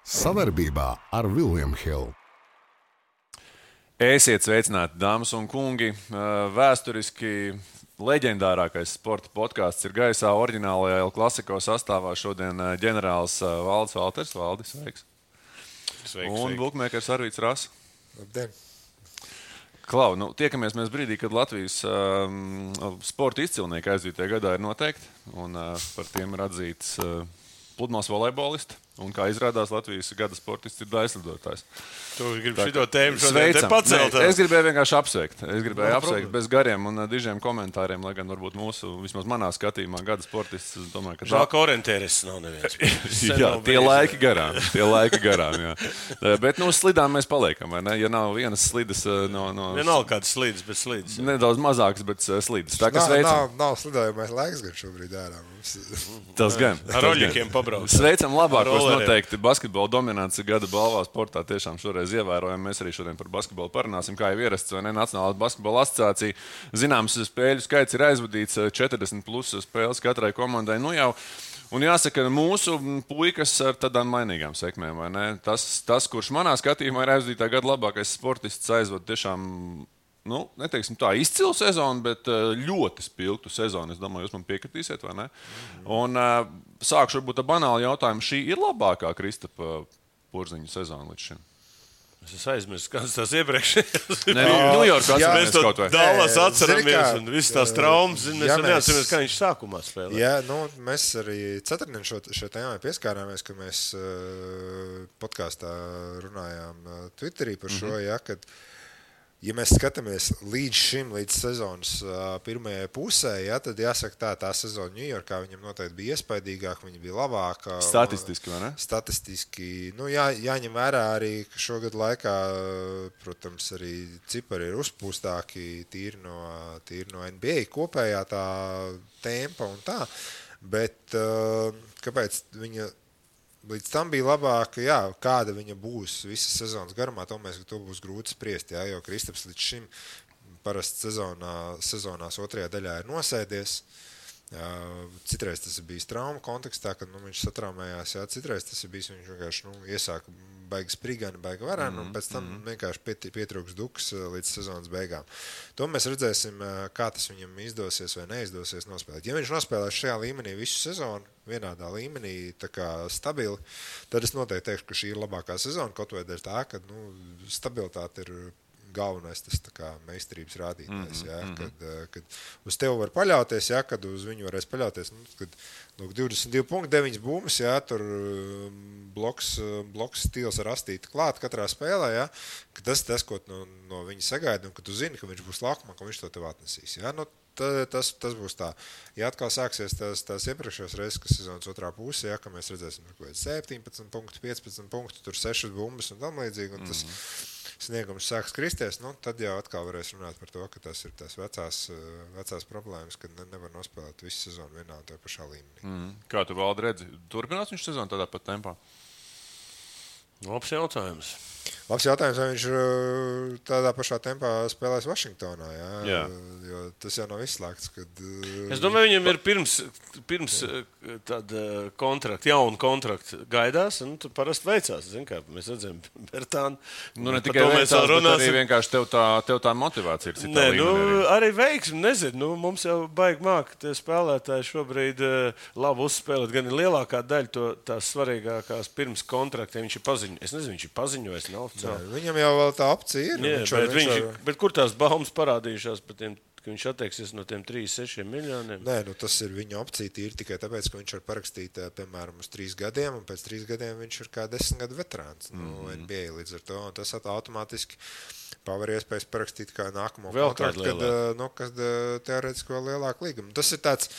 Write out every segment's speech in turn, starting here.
Savarbībā ar William Hill. Esiet sveicināti, dāmas un kungi. Vēsturiski leģendārākais sporta podkāsts ir gaisā oriģinālajā El Clasico sastāvā. Šodien ģenerālis Valdis Valters. Valdis, sveiks. Un bukmēkers Arvīts Rasa. Labdien. Klau, tiekamies mēs brīdī, kad Latvijas sporta izcilnieki aizdītajā gadā ir noteikti. Un par tiem ir atzīts pludmales volejbolisti. Un kā izrādās, Latvijas gada sportists ir daļslidotājs. Tu gribi šito tēmu šodien te pacelt? Es gribēju vienkārši apsveikt. Es gribēju apsveikt bez gariem un dižiem komentāriem, lai gan varbūt mūsu, vismaz manā skatījumā, gada sportists, es domāju, ka... Žēl, ka orientēris nav neviens. Jā, tie laiki garām, jā. Bet slidām mēs paliekam, vai ne? Ja nav vienas slidas no... Vienalga kādas slidas, bet slidas. Nedaudz mazākas, bet slidas. Tā, kas veicam... Nav slidājumais laiks gan šobrīd ārā. Tas gan. Ar roļļiem pabrauc. Sveicam labākos noteikti basketbola dominants gada balvā sportā. Tiešām šoreiz ievērojam. Mēs arī šodien par basketbolu parunāsim, kā jau ierasts, vai ne? Nacionālā basketbola asociācija. Zināms, spēļu skaits ir aizvadīts 40 plus spēles katrai komandai. Un jāsaka, mūsu puikas ar tādām mainīgām sekmēm, vai ne? Tas, kurš manā skatījumā ir aizvadītā gada labākais sportists, aizvada tiešām, neteiksim tā, izcilu sezonu, bet ļoti spilgtu sezonu. Es domāju, jūs man piekritīsiet, vai ne? Un sākšu varbūt ar banālu jautājumu. Šī ir labākā Kristapa Porziņa sezona līdz šim? Es aizmirsu, kādas tās iepriekšējās. Ņujorkā mēs to kaut vai. Dallas atceramies un visas tās traumas. Mēs neatceramies, kā viņš sākumā spēlē. Jā, mēs arī ceturtdien šo tēmai pieskārāmies, kad mēs podkāstā runājām Twitterī par šo, kad ja mēs skatāmies līdz sezonas pirmajai pusē, tad jāsaka tā sezona Ņujorkā viņam noteikti bija iespaidīgāka, viņa bija labāka. Statistiski, vai ne? Statistiski. Jāņem vērā arī, ka šogad laikā, protams, arī cipari ir uzpūstāki tīri no NBA kopējā tā tempa un tā. Bet kāpēc viņa līdz tam bija labāka, kāda viņa būs visas sezonas garumā, to būs grūti spriest, jo Kristaps līdz šim parasti sezonās otrajā daļā ir nosēdies. Citreiz tas ir bijis trauma kontekstā, kad viņš satraumējās, citreiz tas ir bijis, viņš vienkārši iesāka baigi sprigani, baigi varēni, un pēc tam vienkārši pietrūks duks līdz sezonas beigām. To mēs redzēsim, kā tas viņam izdosies vai neizdosies nospēlēt. Ja viņš nospēlēs šajā līmenī visu sezonu, vienādā līmenī, tā kā stabili, tad es noteikti teikšu, ka šī ir labākā sezona, kaut vai dēļ tā, ka stabilitāte ir galvenais tas meistarības rādītājs, kad uz tevi var paļauties, kad uz viņu varēs paļauties, kad 22.9 bumbas, tur bloks stils ar astīti klāt katrā spēlē, ka tas, ko no viņa sagaida, un ka tu zini, ka viņš būs laukumā, ka viņš to tev atnesīs. Tas būs tā. Ja atkal sāksies tās iepriekšējās reizes, kas sezonas otrā pusē, ka mēs redzēsim 17 punktu, 15 punktu, tur 6 bumbas un tam līdzīgi, un tas sniegums sāks kristies, tad jau atkal varēs runāt par to, ka tas ir tās vecās problēmas, kad nevar nospēlēt visu sezonu vienā un tajā pašā līmenī. Kā tu, Valdi, redzi? Turpinās viņš sezonu tādā pat tempā? Labs jautājums. Vai viņš tādā pašā tempā spēlēs Vašingtonā, jo tas jau nav izslēgts, kad... Es domāju, viņam ir pirms tāda kontrakta, jauna kontrakta gaidās, un tur parasti veicās, kā mēs redzam, Bertānu. Ne tikai veicās, bet arī vienkārši tev tā motivācija ir citā līmenī. Arī veiksmi, nezinu, mums jau baigi māk tie spēlētāji šobrīd labi uzspēlēt, gan ir lielākā daļa tās svarīgākās pirms kontrakta, viņš ir paziņojis. Es nezinu, viņš ir paziņojis, nav oficiāli. Viņam jau vēl tā opcija ir. Bet kur tās baumas parādījušās par tiem, ka viņš atteiksies no tiem 3-6 miljoniem? Nē, tas ir viņa opcija tīri tikai tāpēc, ka viņš var parakstīt, piemēram, uz 3 gadiem, un pēc 3 gadiem viņš ir kā 10 gadu veterāns NBA līdz ar to, un tas automātiski paver iespējas parakstīt kā nākamo kontraktu, kad teorētiski vēl lielāku līgumu. Tas ir tāds,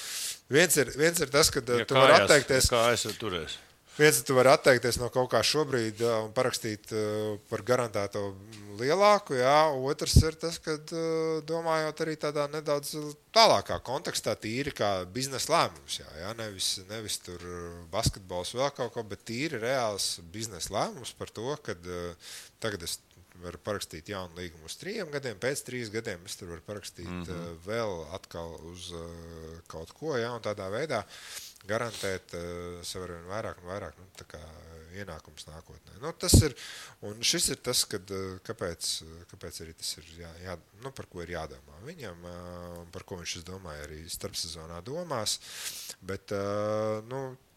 viens ir tas, kad tu vari atteikties. Kā es turēs? Viens, tu vari atteikties no kaut kā šobrīd un parakstīt par garantēto lielāku, otrs ir tas, kad domājot arī tādā nedaudz tālākā kontekstā, tīri kā biznesa lēmums, nevis tur basketbols vēl kaut ko, bet tīri reāls biznesa lēmums par to, kad tagad es varu parakstīt jaunu līgumu uz 3 gadiem, pēc 3 gadiem es tur varu parakstīt vēl atkal uz kaut ko, un tādā veidā garantēt sev arvien vairāk un vairāk ienākums nākotnē. Nu, un šis ir tas, kāpēc arī tas ir par ko ir jādomā viņam, par ko viņš, es domāju, arī starpsezonā domās. Bet,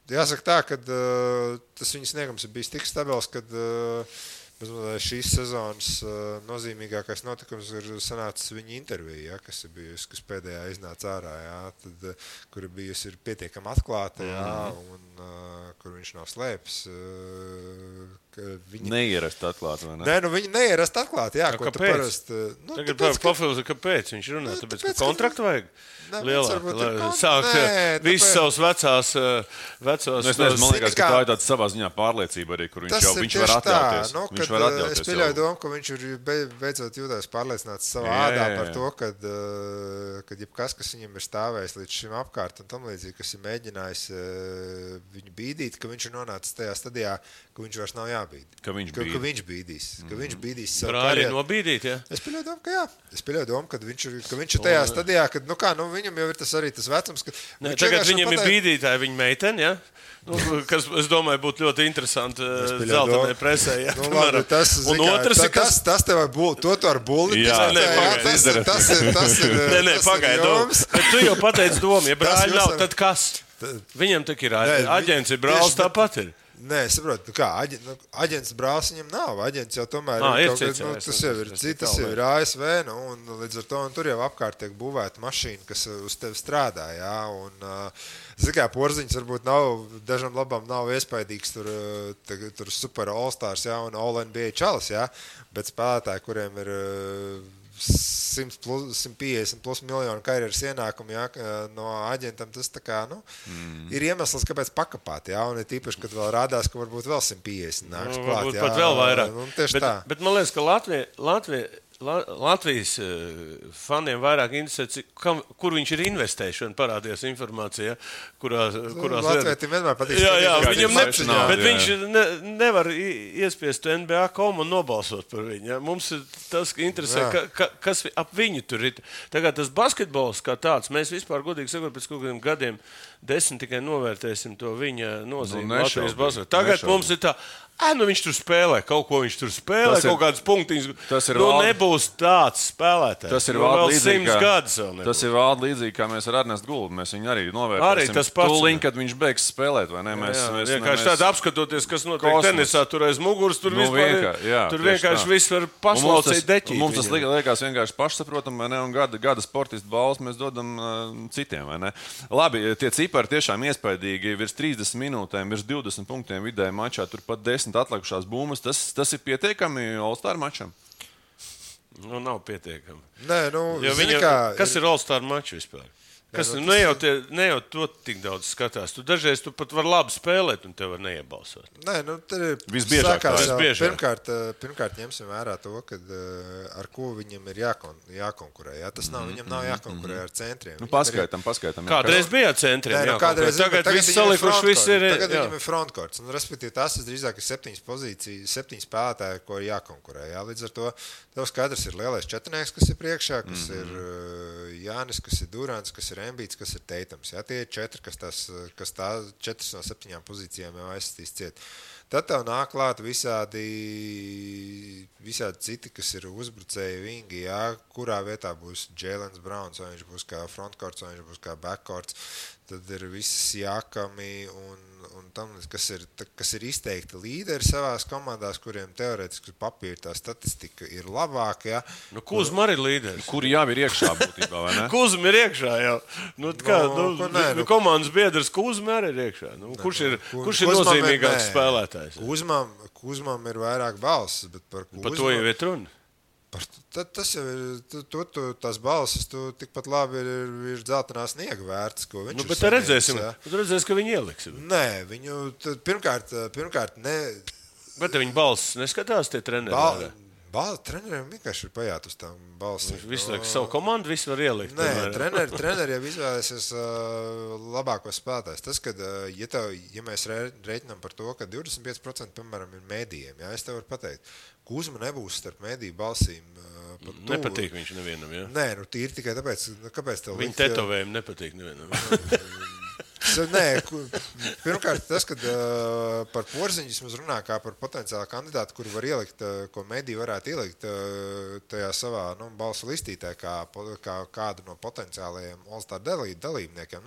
jāsaka tā, ka tas viņa sniegums ir bijis tik stabils, kad šīs sezonas nozīmīgākais notikums ir sanācis viņa intervija, kas ir bijusi, kas pēdējā iznāca ārā, kur ir bijusi pietiekami atklāta, un kur viņš nav slēpis. Neierast atklāt, vai ne? Nē, viņa neierast atklāt, ko tu parasti... Tagad papildus, kāpēc viņš runā? Tāpēc, ka kontraktu vajag lielāk, lai sākt visas savas vecās... Es nezinu, man liekas, ka tā ir tāda savā ziņā pārliecība arī, kur viņš var atļauties. Viņš var atļauties. Es pieļauju domu, ka viņš ir beidzot jūtās pārliecināts savā ādā par to, kad jebkas, kas viņam ir stāvējis līdz šim apkārt un tam līdzīgi, kas ir mēģinājis viņu bīdīt, ka viņš ir nonācis tajā stadijā, ka viņš vairs nav jābīd. Ka viņš bīdīs savu brāļi karjeru. Nobīdīt, ja? Es pieļauju domu, ka jā. Es pieļauju domu, ka viņš ir tajā stadijā, kad, viņam jau ir tas arī tas vecums, ka... Tagad viņam ir bīdītāji viņa meiteni, ja? Kas, es domāju, būtu ļoti interesanti zeltainai presē. Ja? Labi, un otrs ir, tas tev to ar bulli. Tas ir pagaidām. Bet tu jau pateici domu, ja brāļi nav, tad kas? Viņam tak ir aģents, ir brālis, tāpat ir. Nē, es saprotu, aģents brālis viņam nav. Aģents jau tomēr tas jau ir ASV, un līdz ar to tur jau apkārt tiek būvēta mašīna, kas uz tevi strādā, jā, un Porziņš varbūt dažam labam nav iespaidīgs tur super all-stars, jā, un all-NBA čalis, jā, bet spēlētāji, kuriem ir 150 plus miljonu karjeras ienākumu, jā, no aģentam, tas tā kā, ir iemesls, kāpēc pakapāt, jā, un ir tīpaši, kad vēl rādās, ka varbūt vēl 150 nāks klāt, jā. Varbūt pat vēl vairāk. Tieši tā. Bet man liekas, ka Latvijas faniem vairāk interesē, kur viņš ir investējis, un parādījās informācija, kurās Latvijiem vienmēr patīk. Jā, viņam bet viņš nevar iespiest NBA.com un nobalsot par viņu. Ja? Mums ir tas, ka interesē, kas ap viņu tur ir. Tagad tas basketbols kā tāds, mēs vispār godīgi sakot, pēc kaut kādiem gadiem 10 tikai novērtēsim to viņa nozīmi Latvijas basketbolā. Tagad mums ir tā, viņš tur spēlē, kaut ko viņš tur spēlē, kaut kādas punktiņas. Nebūs tāds spēlētājs. Tas ir vēl līdzīgi, kā mēs ar Ernestu Gulbu. Mēs viņu arī novērtēsim. Arī tas pats. Tūlīt, kad viņš beigs spēlēt, vai ne? Vienkārši tāda apskatoties, kas notiek tenisā, tur aiz muguras, tur vienkārši viss var paslaucīt deķīt. Mums tas liekas vienkārši pašsaprotam, vai ne? Un gada sportistu balvas mēs dodam citiem, vai ne? Labi, tie cipari tiešām iespaidīgi. Virs 30 minūtēm, virs 20 punktiem vidēji mačā, tur pat 10 atlikušās būmas. Tas ir pietiekami All-Star mačam? Nav pietiekami. Nē, kas ir All-Star mačs vispār? Ne jau to tik daudz skatās. Tu dažreiz pat vari labi spēlēt, un tev var neiebalsot. Nē, tad ir visbiežāk. Pirmkārt ņemsim vērā to, ar ko viņam ir jākonkurē. Jā? Tas nav, viņam nav jākonkurē ar centriem. Paskaitam. Kādreiz bija ar centriem jākonkurē. Tagad viss salikuši, viss ir... Tagad viņam ir frontkorts. Respektīvi, tas drīzāk ir 7 spēlētāji, ko ir jākonkurē. Jā? Līdz ar to tev skaidrs ir lielais četrnieks, kas ir priekšā, kas ir Jānis, kas ir Durants, kas ir Embīts, kas ir Teitams. Ja? Tie ir 4, kas tā 4 no 7 pozīcijām jau aizsistīs ciet. Tad tev nāk klāt visādi citi, kas ir uzbrucēji vingi, ja? Kurā vietā būs Jēlens Browns, vai viņš būs kā frontkorts, vai viņš būs kā backkorts. Tad ir visas Jākami un tam, kas ir izteikti līderi savās komandās, kuriem teorētiski papīra tā statistika ir labāka. Ja? Kuzma arī līderis. Kuri jau ir iekšā būtībā, vai ne? Kuzma ir iekšā jau. Komandas biedrs Kuzma arī ir iekšā. Kurš ir nozīmīgāks spēlētājs? Kuzmam ir vairāk balsis, bet par Kuzmu... Par to jau ir runa. Tas jau ir, tās balsis, tikpat labi ir dzeltenā sniega vērts, ko viņš ir bet redzēsim, ka viņi ieliks. Nē, viņu pirmkārt ne... Bet viņi balsis neskatās tie treneri? Treneriem vienkārši ir pajāt uz tām balsīm. Visu laiku savu komandu visu var ielikt. Nē, treneri jau izvēlēsies labākos spēlētājs. Tas, kad, ja mēs reiķinām par to, ka 25% piemēram ir mēdījiem, ja, es tev varu pateikt, Kuzma nebūs starp mēdīju balsīm. Nepatīk viņš nevienam, ja? Nē, tīri tikai tāpēc, kāpēc tev viņa tetovējumi nepatīk nevienam. Pirmkārt, tas, kad par Porziņu mēs runājam kā par potenciālu kandidātu, kuru var ielikt, ko mediji varētu ielikt tajā savā balsu listītē, kā kādu no potenciālajiem All-Star dalībniekiem.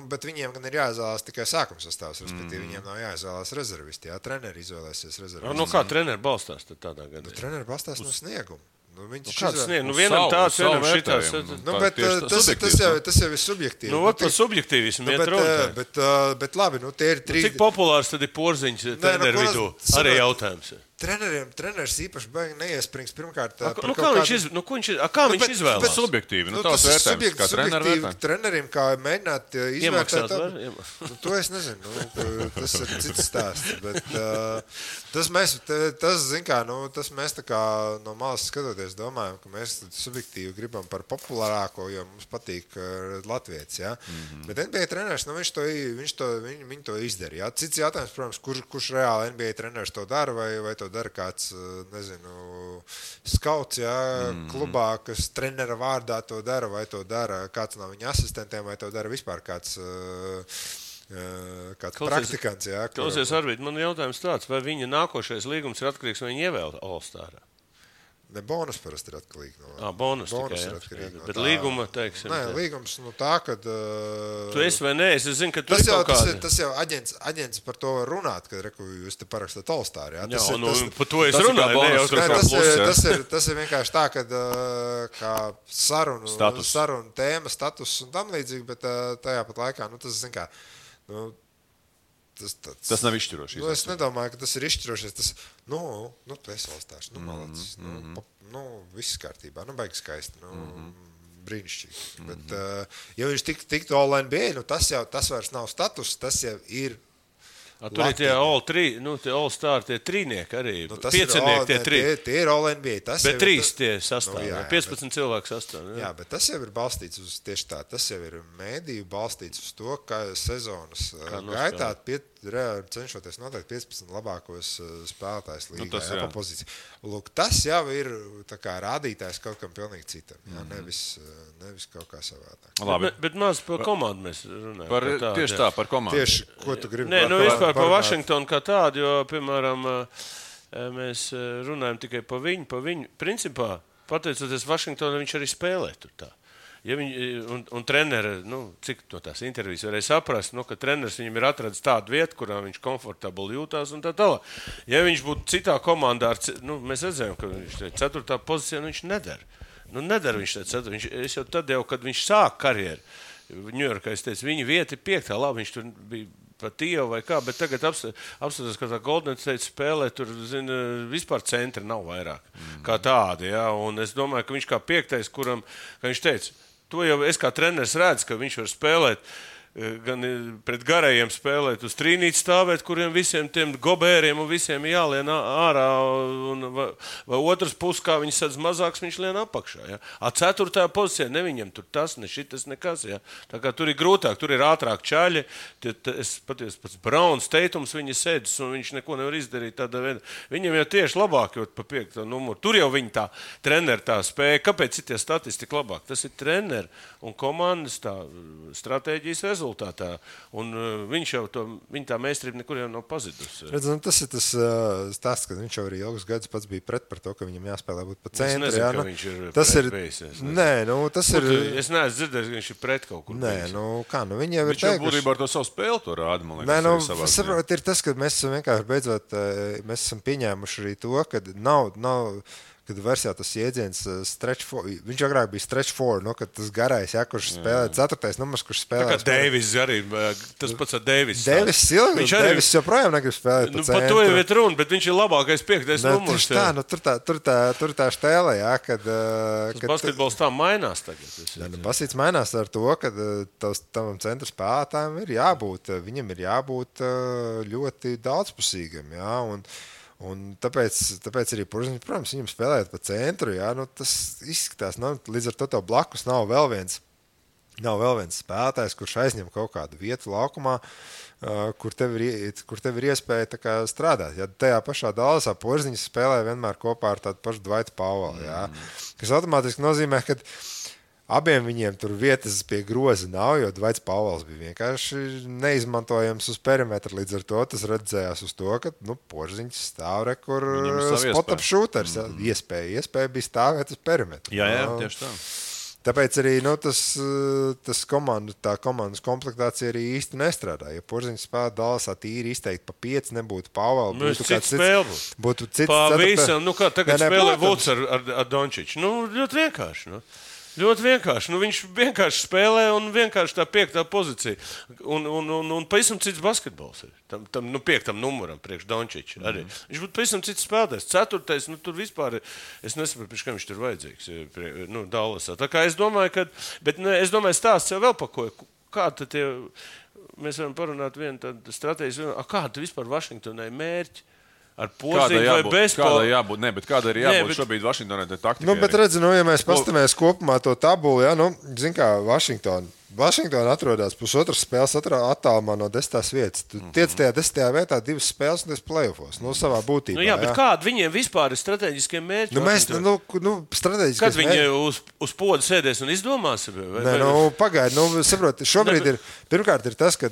Bet viņiem gan ir jāizvēlās tikai sākuma sastāvs, respektīvi viņiem nav jāizvēlās rezervisti. Jā, treneri izvēlēsies rezervisti. Kā treneri balstās tādā gadā? Treneri balstās no snieguma. Kāds sniegums? Vienam tāds, vienam šitās. Tas jau ir subjektīvi. Par subjektīvismu iet runa. Bet labi, tie ir trīs. Cik populārs tad ir Porziņš treneru vidū? Arī jautājums. Treneris īpaši baigi neiesprings pirmkārt. Kā viņš izvēlās? Subjektīvi. Tas ir vērtējums, kā treneru vērtējums. Trenerim, kā mēģināt izvērtēt. To es nezinu. Tas ir cits stāsts. Bet tas mēs tā kā no malas skatoties domājam, ka mēs subjektīvi gribam par populārāko, jo mums patīk latvietis. Ja? Bet NBA treneris, viņi to izdara. Ja? Cits jautājums, protams, kurš reāli NBA treneris to dara vai to dara kāds, skauts, klubā, kas trenera vārdā to dara, vai to dara kāds no viņa asistentiem, vai to dara vispār kāds praktikants. Klausies, Arvid, man jautājums tāds, vai viņa nākošais līgums ir atkarīgs, vai viņa ievēl All-Starā? Ne, bonus parasti ir atkarīgi no. Bonus tikai, ir atkarīgi no. Bet līguma, teiksim. Nē, līgums tā, kad. Tu esi vai nē, es zinu, ka tu esi kaut kādi. Tas jau aģents par to var runāt, kad jūs te parakstāt All-Star. Par to es runāju. Tas ir vienkārši tā, kad kā sarunu tēma, status un tam līdzīgi, bet tajā pat laikā, tas zin kā. Tas nav izšķiroši. Es nedomāju, ka tas ir izšķiroši. Tu esi All-Stars. Malacis. Viss kārtībā. Baigs skaisti. Brīnišķīgi. Bet, ja viņš tiktu All-NBA, tas vairs nav status, tas jau ir. Tur ir tie All-Star, tie trīnieki arī. Piecinieki, tie trīs. Tie ir All-NBA. Bet trīs tie sastāv. 15 cilvēku sastāv. Jā, bet tas jau ir balstīts uz tieši tā. Tas jau ir mēdīju balstīts uz to, ka sezonas gaitā cenšoties noteikt 15 labākos spēlētājus līgā pa pozīciju. Lūk, tas jau ir tā kā rādītājs kaut kam pilnīgi citam. Jā, nevis kaut kā savādāk. Bet maz par komandu mēs runājam. Tieši tā, par komandu. Tieši, ko tu gribi? Vispār par Vašingtonu kā tādu, jo, piemēram, mēs runājam tikai par viņu. Principā, pateicoties Vašingtonam, viņš arī spēlē tur tā. Ja un treneri, cik no tās intervijas varēja saprast, ka treneris viņam ir atradis tādu vietu, kurā viņš komfortabli jūtās un tā tālāk. Ja viņš būtu citā komandā, mēs redzējām, ka viņš 4. pozīcijā viņš nedara. Nedara viņš 4. Es jau tad, kad viņš sāk karjeru, Ņujorkā, es teicu, viņa vieta ir 5. Labi, viņš tur bija pa Tievu vai kā, bet tagad apskatās, ka tā Golden State spēlē, tur, vispār centri nav vairāk kā tādi, jā, un es domāju, ka viņš kā 5. kuram, kā viņš teica, to jau es kā treneris redzu, ka viņš var spēlēt, gan pret garajiem spēlēt, uz trīnīti stāvēt, kuriem visiem tiem gobēriem un visiem jālien ārā, vai otrs puses, kā viņi sadz mazāks, viņš lien apakšā. Ja? 4. pozīcijā, ne viņam tur tas, ne šitas, nekas. Ja? Tā kā tur ir grūtāk, tur ir ātrāk čaļi, es patiesi pats Brauns, Teitums viņa sēdus, un viņš neko nevar izdarīt tādā veidā. Viņam jau tieši labāk, jo pa 5. numuru. Tur jau viņa tā treneri tā spēja. Kāpēc citie statistika labāk? Tas ir treneri un komandas tā stratēģijas rezultātā. Un viņš jau viņa tā meistarība nekur jau nav pazidusi. Redz, tas ir tas stāsts, ka viņš jau arī ilgus gadus pats bija pret par to, ka viņam jāspēlē būt pa centri. Es nezinu, ka viņš ir pret bijis. Tas ir... Es neesmu dzirdējis, ka viņš ir pret kaut kur. Viņi jau ir viņš jau būtībā ar to savu spēli to rāda, man liekas. Saprot, ir tas, ka mēs esam vienkārši beidzot, mēs esam pieņēmuši arī to, ka nav kad versijā tas jēdziens stretch four, viņš agrāk bija stretch four, kad tas garais, kurš spēlē 4. numurs, kurš spēlē. Tā kā Deivis arī, tas pats ar Deivis. Deivis joprojām negrib spēlēt pa centru. Par to jau ir runa, bet viņš ir labākais 5. numurs. Tur tā štēle, kad... Tas basketbols tā mainās tagad. Basketbols mainās ar to, ka tavam centra spēlētājiem ir jābūt, viņam ir jābūt ļoti daudzpusīgam, jā, un tāpēc arī, protams, viņam spēlēt pa centru, jā, tas izskatās, līdz ar to tev blakus nav vēl viens spēlētājs, kurš aizņem kaut kādu vietu laukumā, kur tev ir iespēja tā kā strādāt. Ja tajā pašā Dallasā Porziņš spēlē vienmēr kopā ar tādu pašu Dwightu Powellu, jā, kas automātiski nozīmē, ka abiem viņiem tur vietas pie groza nav, jo Dvaits Pāvils bija vienkārši neizmantojams uz perimetra. Līdz ar to tas redzējās uz to, ka Porziņš stāv kur spot-up shooters. Iespēja bija stāvēt uz perimetra. Jā, tieši tā. Tāpēc arī tā komandas komplektācija arī īsti nestrādā. Ja Porziņš spēlē Dallasā tīri izteikti pa 5, nebūtu Pāvela. Būtu cits visam, kā tagad spēlē Vuds ar Dončiču. Ļoti vienkārši. Ļoti vienkārši. Viņš vienkārši spēlē un vienkārši tā 5. pozīcija. Un pavisam cits basketbols ir. Tam 5. numuram priekš Dončiča arī. Viņš būtu pavisam cits spēlētājs. 4. tur vispār, es nesaprotu, pēc kā viņš tur vajadzīgs. Dallasā. Tā kā es domāju, es domāju, stāsts jau vēl pakoja. Kā tad mēs varam parunāt vienu tādu stratēģiju. Kāda vispār Vašingtonai mērķi? Ar Porziņu vai bez Porziņa? Kāda ir jābūt šobrīd Vašingtonai taktikai? Bet redzi, ja mēs pastamies kopumā to tabulu, zin kā Vašingtona atrodas pusotras spēles attālumā no 10. vietas. Tu tiec tajā 10. vietā 2 spēles un tas playoffos. Savā būtībā. Bet kāda viņiem vispār ir strateģiskie mērķi? Strateģiskie kad viņi uz poda sēdēs un izdomās? Pagaidi, saproti, šobrīd pirmkārt ir tas, ka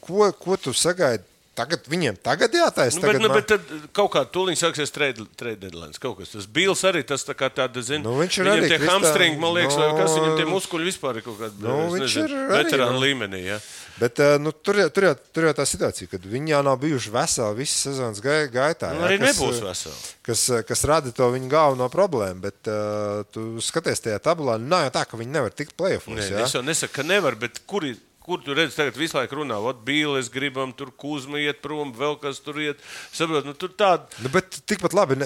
ko tu sagaidi. Viņiem tagad jātaisa. Bet tad kaut kā tūlīt sāksies trade deadline. Kaut kas. Tas Bils arī tas tā kā tāda, viņam tie hamstringi, man liekas, vai kas viņam tie muskuļi vispār ir kaut kāda, veterāna līmenī. Ja? Bet tur jau tā situācija, kad viņi jau nav bijuši veseli visas sezonas gaitā. Arī nebūs veseli. Kas rada to viņu galveno problēmu, bet tu skaties tajā tabulā, nav jau tā, ka viņi nevar tikt playoffos. Es jau nesaku, ka nevar, bet kur tu redzi, tagad visu laiku runā, Bīles gribam, tur Kuzma iet prom, vēl kas tur iet. Saprot, tur tāda. Bet tikpat labi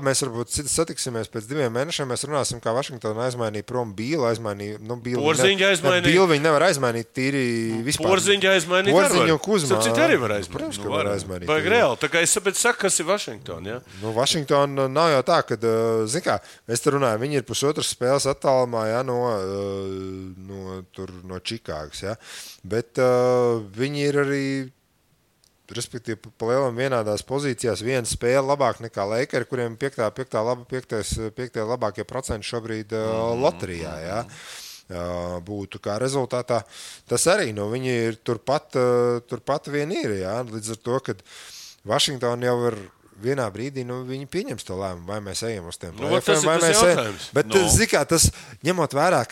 mēs varbūt satiksimies pēc 2 mēnešiem, mēs runāsim, kā Vašingtona aizmainīja prom Bīlu, Porziņu aizmainīja. Bīlu viņi nevar aizmainīt tīri vispār. Porziņu aizmainīt. Porziņu un Kuzma. Citi arī var aizmainīt. Protams, ka var aizmainīt. Vajag reāli. Tā kā es saprotu, kas ir Vašingtona, ja? Vašingtona nav jau tā, ka, zin kā, mēs te runājam, viņi ir pusotras spēles attālumā, no Čikāgas, ja? Bet viņi ir arī, respektīvi, pa lielam vienādās pozīcijās, viena spēle labāk nekā Lakeri, kuriem 5. labākie procenti šobrīd loterijā, ja? Būtu kā rezultātā. Tas arī, viņi ir turpat vien ir, ja? Līdz ar to, ka Vašingtona jau ir vienā brīdī, viņi pieņems to lēmumu, vai mēs ejam uz tiem play-offiem, vai mēs ejam. Bet, zikā, tas ņemot vērā,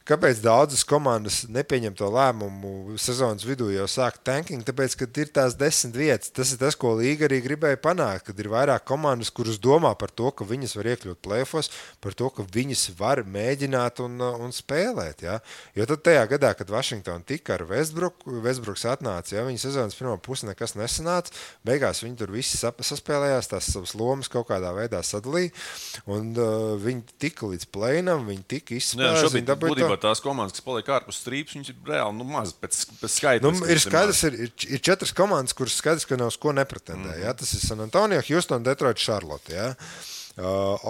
Kāpēc daudzas komandas nepieņem to lēmumu sezonas vidū jau sāk tanking? Tāpēc, ka ir tās 10 vietas. Tas ir tas, ko līga arī gribēja panākt, kad ir vairāk komandas, kuras domā par to, ka viņas var iekļūt play-offos, par to, ka viņas var mēģināt un spēlēt. Ja? Jo tad tajā gadā, kad Vašingtona tika ar Westbrooks atnāca, ja, viņa sezonas pirmā puse nekas nesanāca, beigās viņi tur visi saspēlējās, tās savas lomas kaut kādā veidā sadalīja, un viņi tika līdz play-inam, viņi tika izspēlēti. Tās komandas, kas paliek ārpus strīpas, viņas ir reāli maz pēc skaita. Ir skaidrs, ir 4 komandas, kuras skaidrs, ka nav uz ko nepretendē. Ja? Tas ir San Antonio, Houston, Detroit, Charlotte. Ja?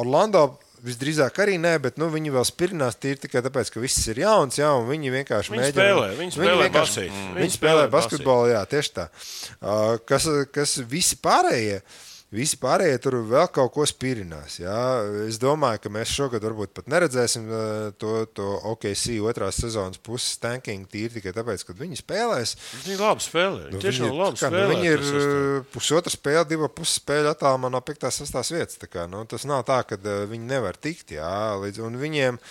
Orlando visdrīzāk arī nē, bet viņi vēl spirinās tīri tikai tāpēc, ka viss ir jauns, ja? Un viņi vienkārši mēģina. Viņi spēlē basketbolu, jā, tieši tā. Kas Visi pārējie tur vēl kaut ko spirinās. Jā. Es domāju, ka mēs šogad varbūt pat neredzēsim to OKC otrās sezonas puses tanking tīri tikai tāpēc, kad viņi spēlēs. Viņi labi spēlē. Tiešām labi spēlē. Viņi ir pusotra spēle, 2 puses spēļu attālumā no 5. 6. vietas. Tā kā, tas nav tā, ka viņi nevar tikt. Jā, un viņiem...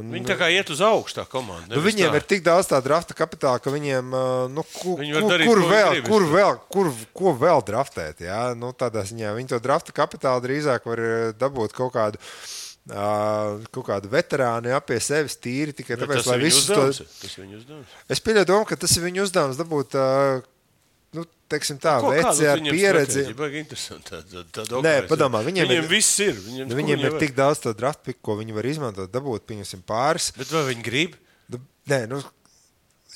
Viņi tā kā iet uz augšu tā komanda. Viņiem ir tik daudz tā drafta kapitāla, ka viņiem, ko vēl draftēt, jā? Tādā ziņā viņi to drafta kapitālu drīzāk var dabūt kaut kādu veterānu, jā, pie sevis tīri, tikai tāpēc, lai visus to... Tas viņu uzdevums. Es pieļauju domu, ka tas ir viņu uzdevums dabūt... teiksim tā, veci ar pieredzi. Nē, padomā, viņiem viss ir. Viņiem ir tik daudz to draft pick, ko viņi var izmantot, dabūt, pieņemsim pāris. Bet vai viņi grib? Nē,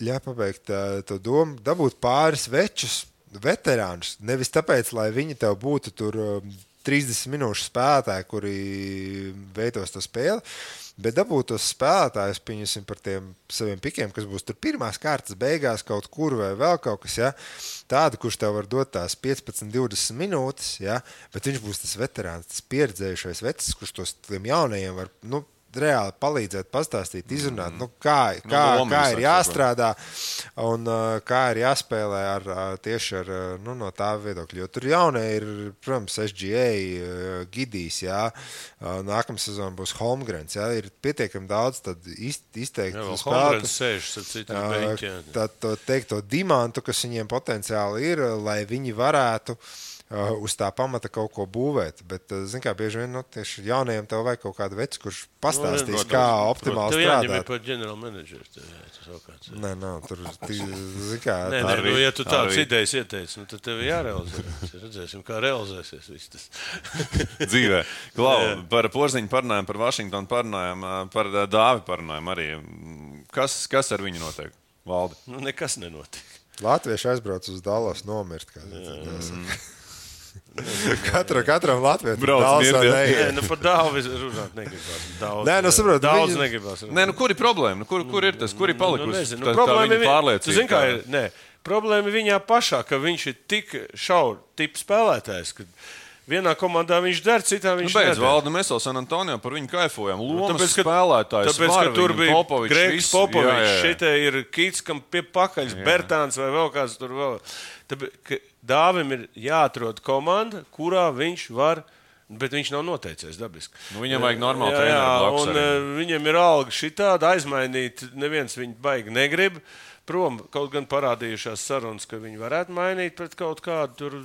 ļauj pabeigt to domu, dabūt pāris večus, veterānus, nevis tāpēc, lai viņi tev būtu tur 30 minūšu spēlētāji, kuri veidos to spēli, bet dabūt tos spēlētājus, pieņemsim par tiem saviem pikiem, kas būs tur pirmās kārtas beigās kaut kur vai vēl kaut kas, ja? Tādu, kurš tev var dot tās 15-20 minūtes, ja? Bet viņš būs tas veterāns, tas pieredzējušais vecis, kurš tos tiem jaunajiem var, reāli palīdzēt, pastāstīt, izrunāt, kā ir jāstrādā un kā ir jāspēlē tieši ar no tā viedokļa. Jo tur jaunie ir, protams, SGA, Gidijs, jā, nākamā sezona būs Holmgrens, jā, ir pietiekami daudz tad izteikti Holmgrens sēžas ar citiem beņķiem. Tad teikt to dimantu, kas viņiem potenciāli ir, lai viņi varētu uz tā pamata kaut ko būvēt. Bet, zin kā, bieži vien, tieši jaunajiem tev vajag kaut kādu veci, kurš pastāstīs, kā optimāli strādāt. Tev jāņem ir par general manageru. Nē, tur, zin kā... ja tu tāds idejas ieteici, tad tev jārealizē. Redzēsim, kā realizēsies viss tas. Dzīvē. Klau, par Porziņu parunājām, par Vašingtonu parunājām, par Dāvi parunājām arī. Kas ar viņu notiek, Valdi? Nekas nenotiek. Latvieši aizbrauc uz Dallas nomirt. Katram latvietim par Dāvi runāt negribās. Daudz negribās. Kur ir problēma? Kur ir tas? Kur ir palikusi? Problēma ir problēma viņā pašā, ka viņš ir tik šauru tipu spēlētājs, ka vienā komandā viņš der, citā viņš nedara. Valdi, mēs jau San Antonio par viņu kaifojam. Lomas spēlētājs. Tāpēc, ka tur bija Gregs Popovičs, šitie ir Kits, kam pie pakaļs, Bertāns vai vēl kāds tur vēl. Tāpēc, Dāvim ir jāatrod komanda, kurā viņš var, bet viņš nav noteicies dabiski. Viņam vajag normāli treneru blakus arī. Viņam ir alga šitāda aizmainīt, neviens viņu baigi negrib. Prom, kaut gan parādījušās sarunas, ka viņi varētu mainīt pret kaut kādu tur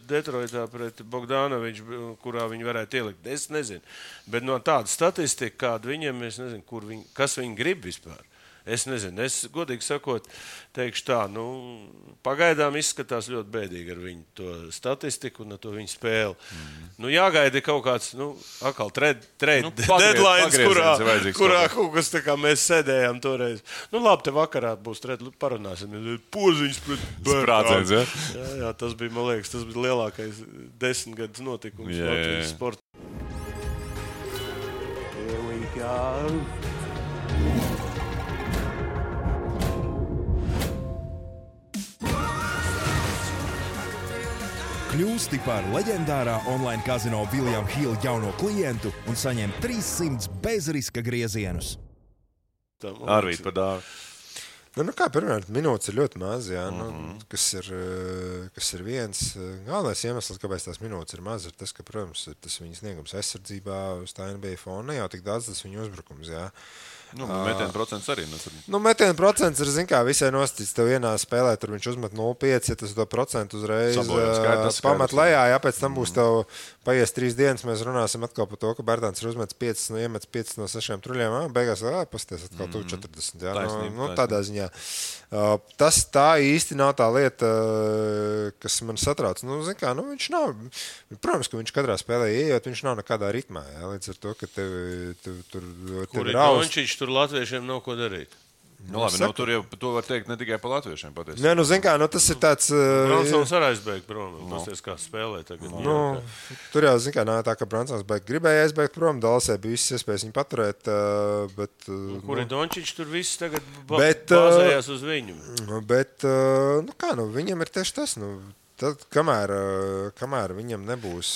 Detroitā pret Bogdanoviču, kurā viņi varētu ielikt. Es nezinu. Bet no tāda statistika, kāda viņiem, es nezinu, kas viņi grib vispār. Es nezinu, es godīgi sakot, teikšu tā, pagaidām izskatās ļoti bēdīgi ar viņu to statistiku un ar to viņu spēli. Jāgaida kaut kāds, atkal deadlines, kurā kaut kas tā kā mēs sēdējām toreiz. Labi, te vakarā būs parunāsim. Porziņš pret Bertāns. Jā, tas bija, man liekas, tas bija lielākais 10 gadus notikums Latvijas sportā. Here we go. Kļūsti par leģendārā online kazino William Hill jauno klientu un saņem 300 bezriska griezienus. Arvīt par Dāvi. Pirmkārt, minūtes ir ļoti maz, jā, kas ir viens. Galvenais iemesls, kāpēc tās minūtes ir maz, ir tas, ka, protams, tas viņa sniegums aizsardzībā uz tā NBA fona, ne jau tik daudz tas viņa uzbrukums, jā. Metienu procents arī. Metienu procents ir, zin kā, visai nostīts. Tev vienā spēlē, tur viņš uzmet 0,5, ja tas to procentu uzreiz pamat lejā. Jā, pēc tam būs tev paies 3 dienas, mēs runāsim atkal par to, ka Bertāns ir uzmets 5 no 6 truļiem. Beigās, pasties atkal tu 40. Jā, tādā ziņā. Tas tā īsti nav tā lieta, kas man satrauc. Zin kā, viņš nav, protams, ka viņš katrā spēlē ieejot, viņš nav nekādā ritmā. Jā, līdz ar to, ka tev ir augsts. Tur latviešiem nav ko darīt. Labi, tur jau to var teikt ne tikai par latviešiem patiesībā. Nē, zin kā, tas ir tāds... Bransons arī aizbeigt prom. Pasties, kā spēlē tagad. Tur jau, zin kā, nav tā, ka Bransons gribēja aizbeigt prom. Dalasē bija visas iespējas viņu paturēt, bet... Kur ir Dončičs, tur viss tagad bāzējās uz viņu. Bet, viņam ir tieši tas, tad, kamēr viņam nebūs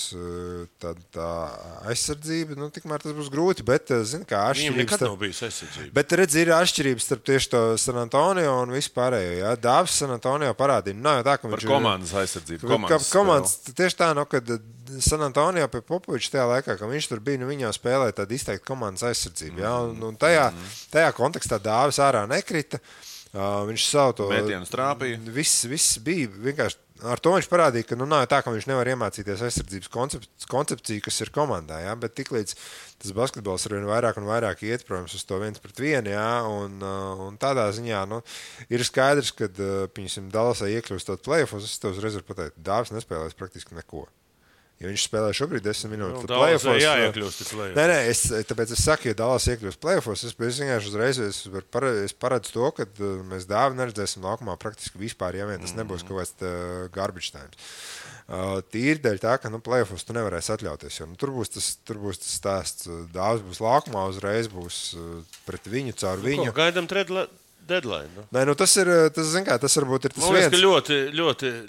tā aizsardzība, tikmēr tas būs grūti, bet, zin kā, viņam nekad nav bijis aizsardzība. Bet, ir atšķirības starp tieši to San Antonio un vispārējo, jā. Dāvis San Antonio parādīja. Nav jau tā, ka viņš ir... Par komandas aizsardzību. Komandas, tieši tā, kad San Antonio pie Popoviča tajā laikā, ka viņš tur bija, viņā spēlēja tādu izteikti komandas aizsardzību, jā. Un tajā kontekstā Dāvis ārā nekrita. Viņš savu to... Mētienu strāpīja. Viss bija vienkārši... Ar to viņš parādīja, ka nav tā, ka viņš nevar iemācīties aizsardzības koncepciju, kas ir komandā, jā, bet tiklīdz tas basketbols arvien vairāk un vairāk iet, protams, uz to 1-1, jā, un tādā ziņā, ir skaidrs, ka, piņasim, Dallasā iekļūstot play-offos, es tev uzreiz varu pateikt, Dāvis nespēlēs praktiski neko. Ja viņš spēlē šobrīd 10 minūtes, tad play-offos... jāiekļūst play-offos. Nē, tāpēc es saku, ja Dallas iekļūst play-offos, es vienkārši uzreiz paredzu to, ka mēs Dāvi neredzēsim laukumā praktiski vispār, ja vien tas nebūs kaut kāds garbage times. Tīri dēļ tā, ka play-offos tu nevarēsi atļauties, jo tur būs tas stāsts. Dāvis būs laukumā, uzreiz būs pret viņu, caur viņu. Gaidām deadline. Nu. Nē, nu tas varbūt ir tas Man liekas, viens. ka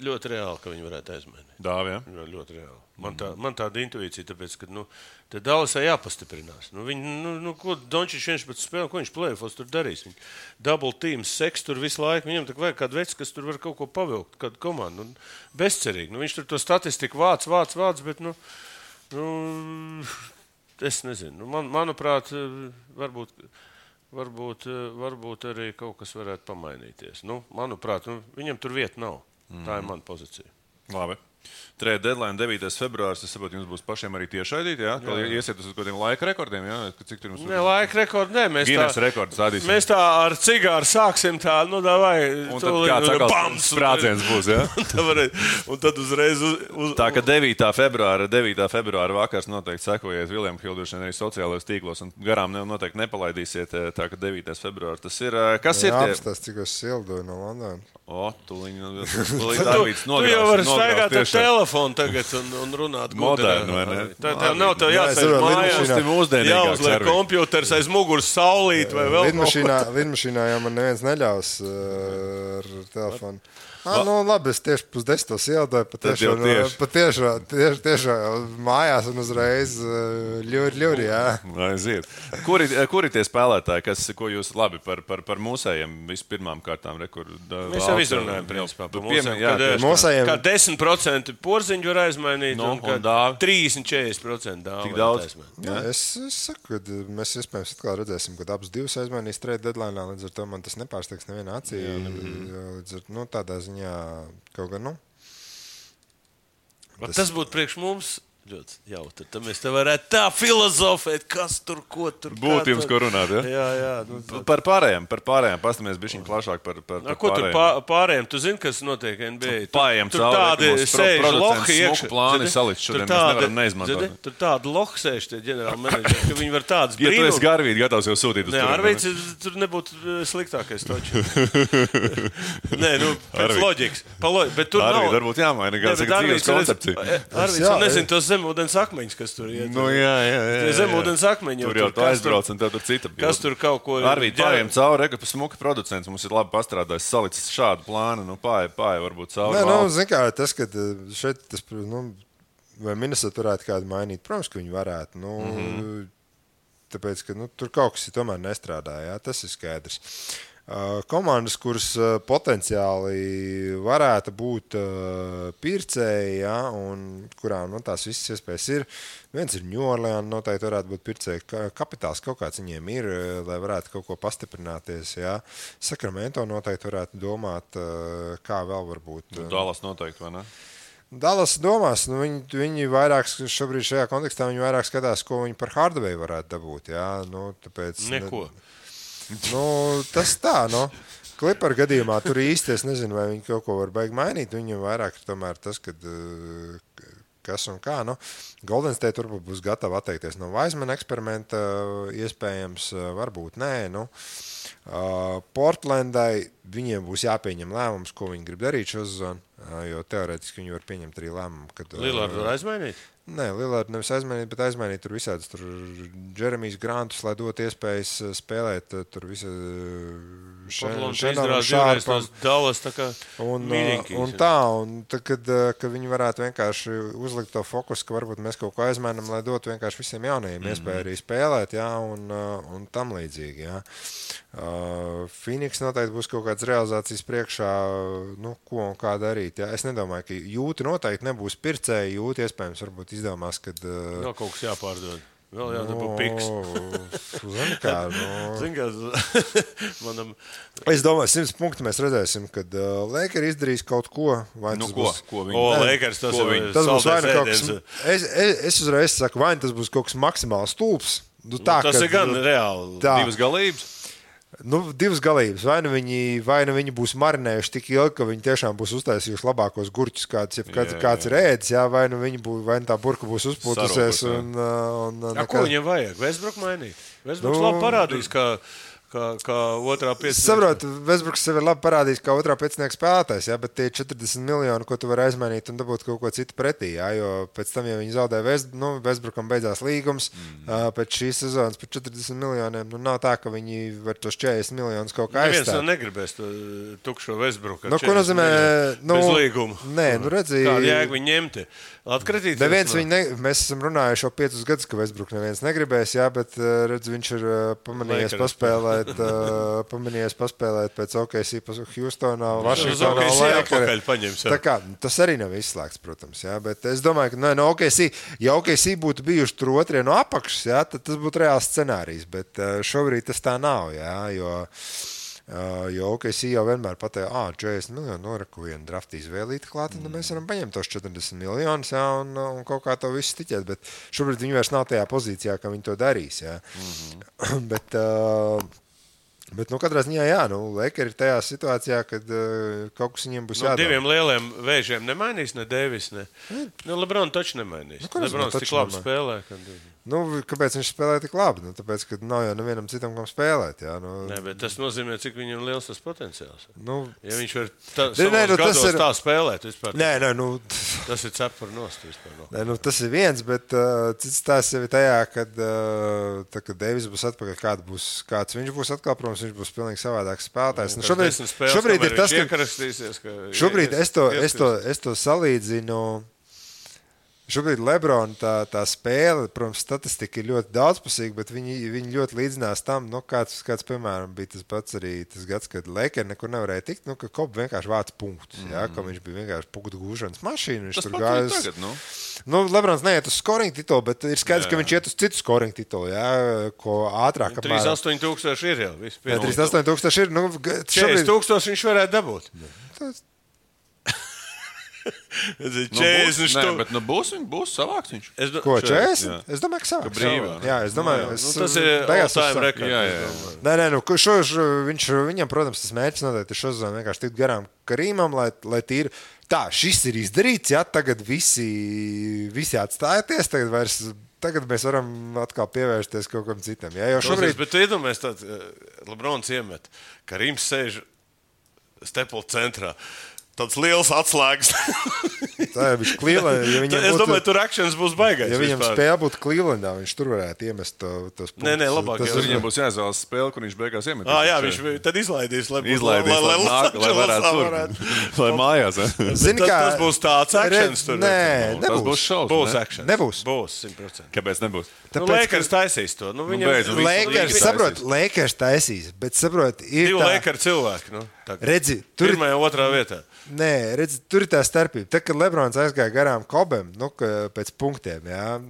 ļoti reāli, ka viņi varētu aizmainīt. Dāvi, ja? Ļoti reāli. Man tāda intuīcija, tāpēc, ka te Dallasai jāpastiprinās. Ko Dončičs viens pēc spēlēm, ko viņš plēfos tur darīs? Viņi double team, seks tur visu laiku. Viņam tā vajag kādu vecu, kas tur var kaut ko pavilkt, kādu komandu. Bezcerīgi. Viņš tur to statistiku vāc, bet, es nezinu. Manuprāt, varbūt arī kaut kas varētu pamainīties. Manuprāt, viņam tur vieta nav. Tā ir mana pozīcija. Labi. Trade deadline 9. februāris. Es saprotu, jums būs pašiem arī tiešraidīt, jā? Jā. Iesiet uz kādiem laika rekordiem, jā? Cik tur jums Ne, laika rekordi, nē. Guinness rekords stādīsim. Mēs tā ar cigāru sāksim tā, davai. Un tad kāds atkal sprādziens būs, jā? Un tad uzreiz Tā, ka 9. februāra vakars noteikti sekojiet William Hill arī sociālajos tīklos un garām noteikti nepalaidīsiet. Tā, ka 9. februārs tas ir. Kas ir tie? Apstās, cik es sildoju no Londonas. Tūlīt Tu jau vari staigāt ar telefonu tagad un runāt moderni, vai ne? Tā nav tev jāsēž mājās, jāuzliek kompjuters aiz muguras saulīt vai vēl Lidmašīnā jau man neviens neļaus ar telefonu. Labi, es tieši 9:10 iedoju, patiešām mājās un uzreiz ļuri, jā. Aiziet. Kuri tie spēlētāji, ko jūs labi par mūsējiem vispirmām kārtām rekordu? Mēs jau izrunājam, principā, par mūsējiem. Kā 10% porziņu var aizmainīt un kā 30-40% dāvu. Tik daudz? Jā, es saku, ka mēs iespējams atkal redzēsim, kad abas divas aizmainīs trade deadline, līdz ar to man tas nepārsteigs nevienā acī. Līdz ar, tādā ziņā kaut gan, Tas būtu priekš mums ļoti jautri. Tad mēs te varētu tā filozofēt, kas tur, ko tur. Būtu jums, ko runāt, ja? Jā. Par pārējiem. Pastāmies bišķiņ plašāk par pārējiem. Ko tur pārējiem? Tu zini, kas notiek NBA? Pārējiem tur tādi sēž lohi iekšā. Plāni salikt šodien, mēs nevaram neizmantot. Tur tādi lohi sēž tie ģenerāli menedžeri, ka viņi var tādas brīnums. Ja tu esi Garvīti gatavs jau sūtīt uz tur. Nē, Arvīts tur nebūtu sliktākais toči. Nē, pēc loģikas. Bet tur nav. Arvīti varbūt jāmaina kāds dzīves koncepcija. Arvīts, nezinu, tos zemūdens akmeņus, kas tur iet. Jā. Zemūdens akmeņi. Tur jau tu aizbrauc un tev tur cita. Kas tur kaut ko... Arvīt, pārējiem cauri, ka smuka producents mums ir labi pastrādājis, salicis šādu plānu, pārēj varbūt cauri. Nē, zin kā, tas, ka šeit, vai Minnesota varētu kādu mainīt, protams, ka viņi varētu, tāpēc, ka tur kaut kas tomēr nestrādā, jā, tas ir skaidrs. Komandas, kuras potenciāli varētu būt pircēji, ja, un kurām tās visas iespējas ir. Viens ir New Orleans, noteikti varētu būt pircēji. Kapitāls kaut kāds viņiem ir, lai varētu kaut ko pastiprināties. Ja. Sacramento noteikti varētu domāt, kā vēl varbūt. Dallas noteikti, vai ne? Dallas domās, viņi vairāk šobrīd šajā kontekstā viņi vairāk skatās, ko viņi par Hardaway varētu dabūt. Ja. Tāpēc, neko. Tas tā, Clipper gadījumā tur īsti es nezinu, vai viņi kaut ko var baigi mainīt. Viņam vairāk tomēr tas, kad kas un kā. Golden State varbūt būs gatava atteikties no Wiseman eksperimenta, iespējams, varbūt nē. Portlandai viņiem būs jāpieņem lēmums, ko viņi grib darīt šo sezonu, jo teorētiski viņi var pieņemt arī lēmumu. Lillardu var aizmainīt? Nē, Lillardu nevis aizmainīt, bet aizmainīt tur visādus Jeremijs Grantus, lai dot iespējas spēlēt tur visu Šārpam. Dallas tā kā mīļiņkīs. Un tā, kad viņi varētu vienkārši uzlikt to fokusu, ka varbūt mēs kaut ko aizmainam, lai dotu vienkārši visiem jaunajiem iespēju arī spēlēt, jā, un tam līdzīgi, jā. Phoenix noteikti būs kaut kāds realizācijas priekšā, ko un kā darīt, jā. Es nedomāju, ka Jūti noteikti nebūs pircēji, Jūti iespējams varbūt izdomās, kad... Nav kaut kas jāpārdod. Vēl jādabū piks. Zini kā, manam... Es domāju, 100 punktu mēs redzēsim, kad Lakers izdarīs kaut ko. Vai tas būs... Lakers, tas būs vai nu kaut kas... Es uzreiz saku, vai tas būs kaut kas maksimāli stulbs. Tas ir gan reāli. Divas galības. Divas galības. Vai nu viņi būs marinējuši tik ilgi, ka viņi tiešām būs uztaisījuši labākos gurķus, kāds ir ēdis, jā, vai nu tā burka būs uzpūtusies. Ko viņiem vajag? Westbrook mainīt? Westbrooks labi parādīs, kā otrā piecinieka. Saprotu, Westbrooks sev ir labi parādījis, kā otrā piecinieka spēlētājs, jā, bet tie 40 miljoni, ko tu vari aizmainīt un dabūt kaut ko citu pretī, jā, jo pēc tam, ja viņi zaudē Westbrookam beidzās līgums, pēc šīs sezonas par 40 miljoniem, nav tā, ka viņi var tos 40 miljonus kaut kā aizstāt. Neviens negribēs to tukšo Westbrooku. Ko nozīmē? Bez līguma. Nē, redzi. Kādu jēgu viņi ņemti? Atkritīties? Mēs esam runājuši jau 5 gadus, ka Westbrook neviens negribēs, jā, bet redz, viņš ir pamanījies paspēlēt pēc OKC, Houstonā, Vašingtonā. Tā kā, tas arī nav izslēgts, protams, jā, bet es domāju, ka no OKC, ja OKC būtu bijuši tur otrie no apakšas, jā, tad tas būtu reāls scenārijs, bet šobrīd tas tā nav, jā, jo OKC jau vienmēr pateica, 40 miljonu noraku vienu draftīs vēlīti klāt, un mēs varam paņemt tos 40 miljonus, jā, un kaut kā to visu tiķēt, bet šobrīd viņi vairs nav tajā pozīcijā, ka viņi to darīs, jā. Bet katrā ziņā, jā, Lakers ir tajā situācijā, kad kaut kas viņiem būs jādara. Diviem lieliem vēžiem nemainīs, ne Davis, ne. LeBron taču nemainīs. LeBron tik labi spēlē, kad... Kāpēc viņš spēlē tik labi? Tāpēc, ka nav jau nevienam citam, kam spēlēt. Jā, Nē, bet tas nozīmē, cik viņam liels tas potenciāls. Ja viņš var tā spēlēt vispār. Nē, tas ir cepur nost vispār. Nē, tas ir viens, bet cits tās jau ir tajā, kad Davis būs atpakaļ, kāds viņš būs atkal, protams, viņš būs pilnīgi savādāks spēlētājs. Šobrīd ir tas, ka šobrīd es to salīdzinu. Šobrīd Lebrona tā spēle, protams, statistika ir ļoti daudzpusīga, bet viņi ļoti līdzinās tam, kāds, piemēram, bija tas pats arī tas gads, kad Lakers nekur nevarēja tikt, ka Kobe vienkārši vāc punktus, ka viņš bija vienkārši punktu gūšanas mašīna. Tas pat ir tagad, Lebrons neiet uz scoring titulu, bet ir skaidrs, ka viņš iet uz citu scoring titulu, ko ātrāk. 38,000 ir jau. 38,000 ir. 40,000 viņš varētu dabūt. Būs savāks viņš. Ko, 40? Es domāju, ka savāks. Jā, es domāju, tas ir all-time rekords. Nē, viņam, protams, tas mērķis noteikti ir šozonu vienkārši tikt garām Karīmam, lai tīri. Tā, šis ir izdarīts, jā, tagad visi atstājieties, tagad mēs varam atkal pievērsties kaut kam citam. Jā, jo šobrīd... Bet tu iedomājies tāds, Lebrons iemet, Karīms sēž Staples centrā. Tāds liels atslēgas. Tā ir Cleveland. Es domāju, tur akcents būs baigais. Ja viņam spēle būtu Clevelandā, viņš tur varētu iemest tos punktus. Nē, labāk. Viņam būs jāizvēlas spēle, kur viņš beigās iemet. Jā, viņš tad izlaidīs, lai varētu tur. Lai mājās. Tas būs tāds akcents tur. Nē, nebūs. Tas būs šausmas. Būs akcents. Nebūs. Būs 100%. Kāpēc nebūs? Lakers taisīs to. Lakers taisīs, bet saprot, ir divi Lakers cilvēki. Redzi, tur pirmajā un otrā vietā. Nē, redzi, tur ir tā starpība. Tad, kad Lebrons aizgāja garām Kobem, pēc punktiem, jā,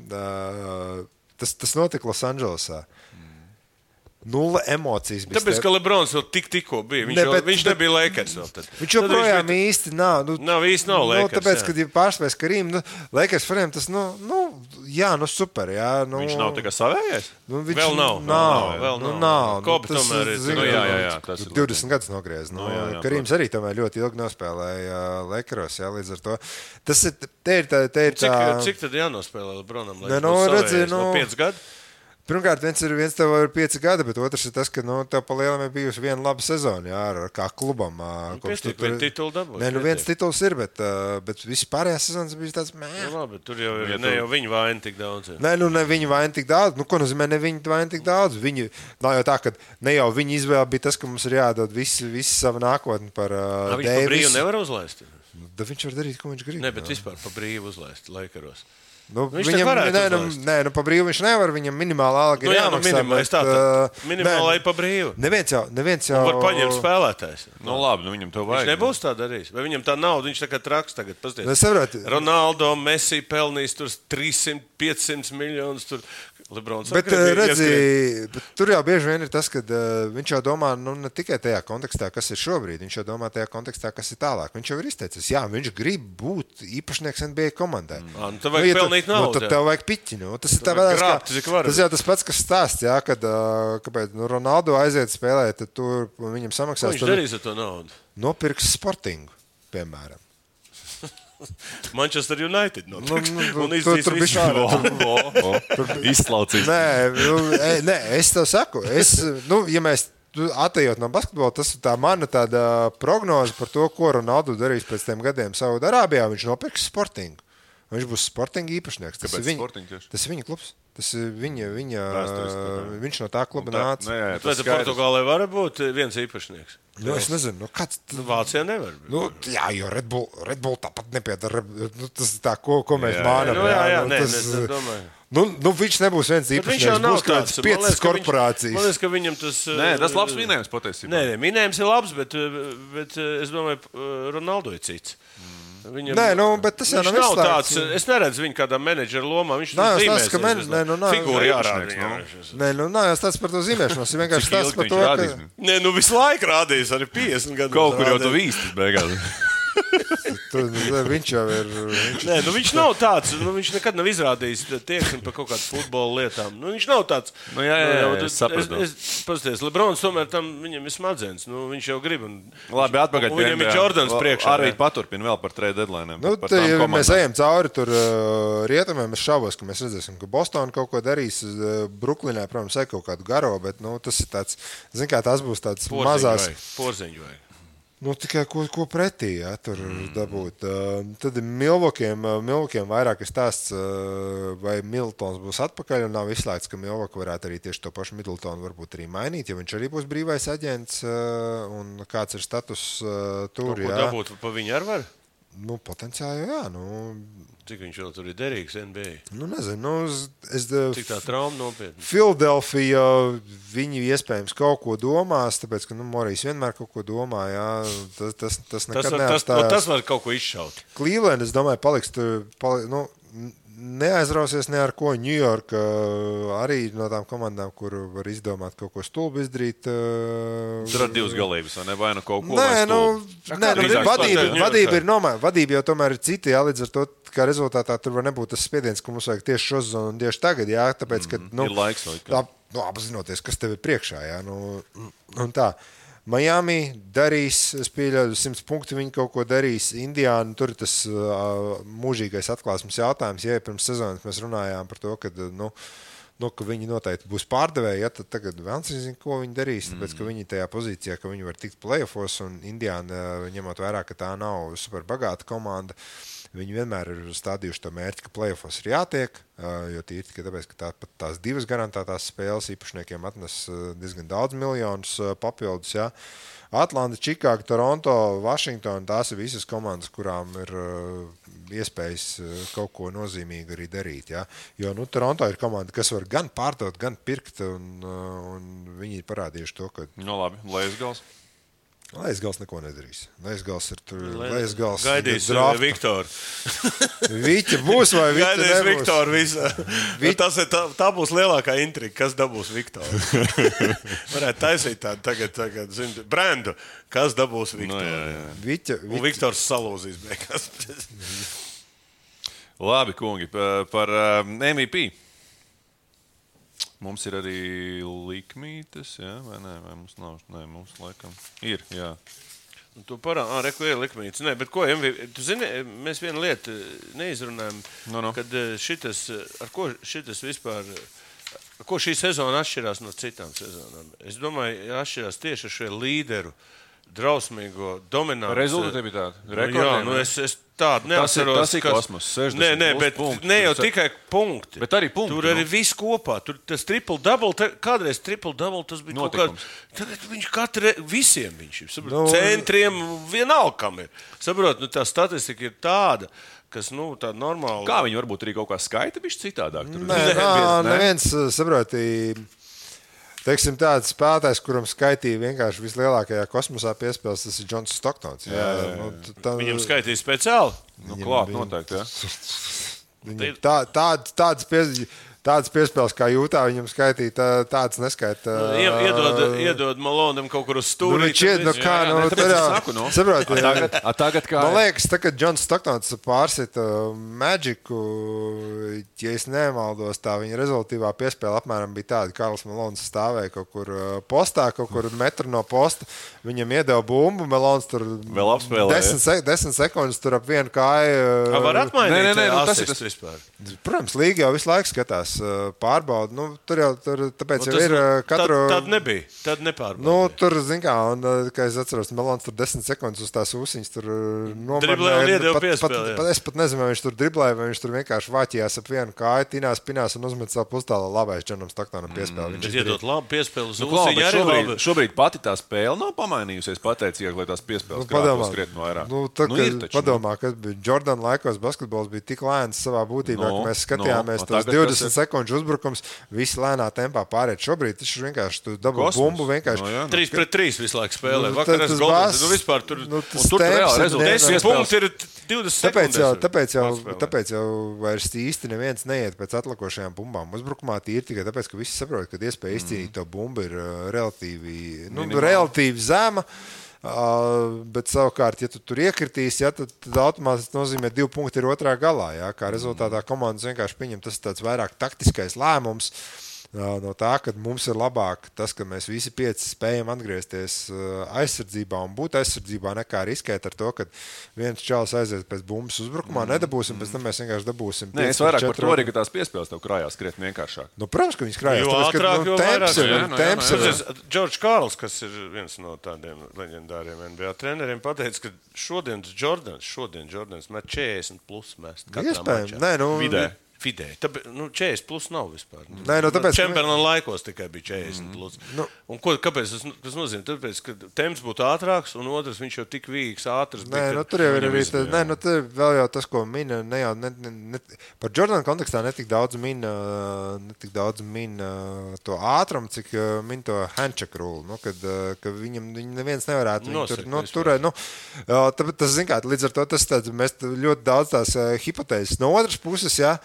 tas notika Losandželosā. 0 emocijas bija. Tāpēc, ka Lebrons vēl tikko bija. Viņš nebija Lakers vēl tad. Viņš joprojām īsti nav. Nav Lakers. Tāpēc, kad ir pārspējas Karīm, Lakers faniem tas, super, jā. Viņš nav tā kā savējais? Vēl nav. Vēl nav. Kobe tomēr ir. Jā. 20 gadus nogriez. Karīms arī tomēr ļoti ilgi nospēlēja Lakeros, jā, līdz ar to. Tas ir tā. Cik tad jānospēlē Lebronam? Redzi, 5 gadi? Pirmkārt, viens tev ir 5 gadi, bet otrs ir tas, ka tev pa lielam ir bijusi viena laba sezona, jā, kā klubam. Titulu dabūs. Nē, viens tituls ir, bet visi pārējās sezonas bija tāds, labi, tur jau ir ne jau viņu vaina tik daudz. Nē, ne viņu vaina tik daudz. Ko nozīmē ne viņu vaina tik daudz? Nav jau tā, ka ne jau viņa izvēle bija tas, ka mums ir jādod visu savu nākotni par Deivisu. Viņš pa brīvu nevar uzlaist? Viņš var darīt, ko viņš grib. Ne, bet vispār pa brīvu uzlaist Lakeros. Viņam pa brīvu viņš nevar, viņam minimāla alga ir jāmaksā. Minimālai pa brīvu. Neviens jau var paņemt spēlētājs. Labi, viņam to vajag. Viņš nebūs tā darījis. Vai viņam tā nauda, viņš tā kā traks tagad. Pasties. Ronaldo, Messi pelnīs tur 300, 500 miljonus tur. Lebrons. Bet, tur jau bieži vien ir tas, ka viņš jau domā ne tikai tajā kontekstā, kas ir šobrīd, viņš jau domā tajā kontekstā, kas ir tālāk. Viņš jau ir izteicis, jā, viņš grib būt īpašnieks NBA komandai. Tad vajag pelnīt naudu. Tad tev vajag piķi. Tas ir tas jau tas pats, kas stāsts, jā, kad kāpēc Ronaldo aiziet spēlēt, tad tur viņam samaksās. Ko viņš darīs ar to naudu? Nopirks Sportingu, piemēram. Manchester United. Un tur bija izslaucīs. Nē, es tev saku. Ja mēs atejot no basketbola, tas ir tā mana tāda prognoze par to, ko Ronaldu darīs pēc tiem gadiem Saudarābijā. Viņš nopirks Sportingu. Viņš būs Sportinga īpašnieks. Tas ir viņa klubs. Tas ir viņš no tā kluba nāca. Vai Portugālē var būt viens īpašnieks? Es nezinu, kāds. Vācijā nevar būt. Jā, jo Red Bull tāpat nepiedara. Tas ir tā, ko mēs mānam. Es domāju. Viņš nebūs viens īpašnieks. Viņš jau nav tāds 5 korporācijas. Man liekas, ka viņam tas... Tas labs minējums patiesībā. Nē, minējums ir labs, bet es domāju, Ronaldo ir cits. Viņam, bet tas jau nav tāds. Es neredzu viņu kādā menedžera lomā. Viņš figūra jārāda. Es tāds par to zīmēšanos. Viņš vienkārši stāsts par to, ka... Visu laiku rādījis arī 50 gadu. Kaut kur jau tu vīstis beigās. Viņš jau ir. Viņš nav tāds. Viņš nekad nav izrādījis tieksmi par kaut kādām futbola lietām. Viņš nav tāds. Es saprotu. Paskaties, Lebrons tomēr tam viņam ir smadzenes. Viņš jau grib. Labi, atpakaļ pie viņam ir Jordans priekšā. Arī paturpina vēl par trade deadline. Ja mēs ejam cauri tur rietumiem, es šaubos, ka mēs redzēsim, ka Bostona kaut ko darīs. Bruklinē, protams, ir kaut kādu garo, bet tas ir tāds, zin kā, tas būs tāds mazās. Porziņu vajag. Tikai ko pretī, tur dabūt. Tad ir Milvokiem vairāk stāsts, vai Middletons būs atpakaļ, un nav izslēgts, ka Milvoka varētu arī tieši to pašu Middletonu varbūt arī mainīt, jo viņš arī būs brīvais aģents, un kāds ir status tur. Ko dabūt pa viņu ar var? Potenciāli, jā. Cik viņš vēl tur ir derīgs NBA? Nezinu. Cik tā trauma nopietna? Filadelfija, viņi iespējams kaut ko domās, tāpēc, ka Morijs vienmēr kaut ko domā, jā. Tas nekad neapstājās. Tas var kaut ko izšaut. Cleveland, es domāju, paliks tur, neaizrausies ne ar ko. New York arī no tām komandām, kur var izdomāt kaut ko stulbu izdarīt. Tur ar divas galības, vai ne? Vai nu kaut ko vadība ir nomēr. Vadība jau tomēr ir cita, jā, līdz ar to, kā rezultātā tur var nebūt tas spiediens, ka mums vajag tieši šo sezonu un tieši tagad, jā, tāpēc, ka, ir laiks vai apzinoties, kas tev ir priekšā, jā, un tā. Miami darīs, es pieļauju 100 punktu, viņi kaut ko darīs. Indiāna, tur ir tas mūžīgais atklāsmes jautājums. Ja pirms sezonas mēs runājām par to, ka, ka viņi noteikti būs pārdevēji, ja, tad tagad vēlams nezinu, ko viņi darīs, tāpēc, ka viņi tajā pozīcijā, ka viņi var tikt playoffos, un Indiāna, ņemot vērā, ka tā nav super bagāta komanda, viņi vienmēr ir stādījuši to mērķi, ka playoffos ir jātiek, jo tīri tikai tāpēc, ka tās divas garantētās spēles īpašniekiem atnes diezgan daudz miljonus papildus. Jā. Atlanta, Čikāga, Toronto, Vašingtona, tās ir visas komandas, kurām ir iespējas kaut ko nozīmīgi arī darīt. Jā. Jo Toronto ir komanda, kas var gan pārdot, gan pirkt, un viņi ir parādījuši to, ka... labi, Leisgals. Leisgals neko nedarīs. Leisgals ir tur. Gaidīs Viktoru. Viķa būs vai Viķa nebūs? Gaidīs Viktoru visā. Tā būs lielākā intriga, kas dabūs Viktoru. Varētu taisīt tādu tagad brendu, kas dabūs Viktoru. Un Viktors salūzīs beigās. Labi, kungi, par MVP. Mums ir arī likmītes, jā, vai nē, vai mums nav? Nē, mums laikam ir, jā. Tu reku ir likmītes. Nē, bet ko, tu zini, mēs vienu lietu neizrunājam, kad ar ko šitas vispār, ko šī sezona atšķirās no citām sezonām. Es domāju, atšķirās tieši ar šo līderu, drausmīgo, dominantu. Rezultātivitāti. Jā, es tādu neatceros. Tas ir kosmos, 60 bet punkti. Ne jau tikai punkti. Bet arī punkti. Tur arī viss kopā. Tur tas triple-double, kādreiz triple-double tas bija notikums. Tagad viņš visiem viņš ir. Centriem vienalga kam ir. Saprot, tā statistika ir tāda, kas, tāda normāla. Kā viņi varbūt arī kaut kā skaita bišķi citādāk? Neviens, saproti, teiksim, tāds spēlētājs, kuram skaitīja vienkārši vislielākajā kosmosā piespēles, tas ir Džons Stoktons. Viņam skaitīja speciāli? Klāt noteikti, jā. Tādas piespēles kā Jūtā viņam skaitīja, tādas neskaita. Iedod Malonam kaut kur uz stūri. Tagad kā... Man liekas, kad Džons Stoktons pārsita Magicu, ja es nemaldos, tā viņa rezultīvā piespēle apmēram bija tāda, Karls Malons stāvēja kaut kur postā, kaut kur metru no posta. Viņam iedeva bumbu, Melons tur vēl apspēlēja. 10 sekundes tur ap vienu kāju. Var atmainīt asistu vispār? Protams, līga jau visu laiku skatās. pārbauda. Nu, tāpēc jau ir katru... Tad nebija. Tad nepārbauda. Nu, tur, zin kā, un, kā es atceros, Melons tur 10 sekundes uz tās ūsiņas tur nomarnēja. Driblēja un iedeva piespēli. Es pat nezinu, vai viņš tur driblēja, vai viņš tur vienkārši vāķījās ap vienu kāju, tinās, pinās un uzmet savu pustālu labais Džonam Staktonam piespēli. Viņš iedot labu piespēli uz ūsiņu arī labi. Šobrīd pati tā spēle nav pamainījusies pateicīgi, lai tās piespēles krātos krietni vairāk. Padomā, ka Jordan laikos basketbols bija tik lēns savā būtībā, ka mēs skatījāmies tos 20 sekundžu uzbrukums, visi lēnā tempā pārēt. Šobrīd tas vienkārši tu dabū bumbu vienkārši. 3-3 visu laiku spēlē. Vakarās Goldens, vispār tur reāli rezultāts. 10 punkti ir 20 sekundes. Tāpēc jau vairs īsti neviens neiet pēc atlikušajām bumbām. Uzbrukumā tīri tikai tāpēc, ka visi saprot, ka iespēja izcīnīt to bumbu ir relatīvi zema. Bet savukārt, ja tu tur iekritīs, tad automātiski nozīmē 2 punkti ir otrā galā. Ja? Kā rezultātā komandas vienkārši pieņem tas tāds vairāk taktiskais lēmums. No tā, ka mums ir labāk tas, ka mēs visi 5 spējam atgriezties aizsardzībā un būt aizsardzībā, nekā riskēt ar to, ka viens čalis aiziet pēc bumbas uzbrukumā, nedabūsim, pēc tam mēs vienkārši dabūsim. Nē, es vairāk par to arī, ka tās piespēles tev krājās krietni vienkāršāk. Nu, protams, ka viņas krājās. Jo ātrāk, jo vairāk. Temps ir. Džordžs Kārls, kas ir viens no tādiem leģendāriem NBA treneriem, pateica, ka šodienas Jordans met 40 plus mest katrā mačā. Nē, nu, Vidēji. 40 plus nav vispār. Nē, tāpēc, Čemberlina laikos tikai bija 40 plus. Un kāpēc tas nozīmē? Tāpēc, ka temps būtu ātrāks, un otrs viņš jau tik vīgs, ātrs. Nē, tur jau ir arī tur vēl jau tas, ko mina, par Jordana kontekstā netik daudz mina to ātrumu, cik min to handshake rule, ka viņam neviens nevarētu turēt. Tas, zin kā, līdz ar to mēs ļoti daudz tās hipotēzes. No otras puses, jā,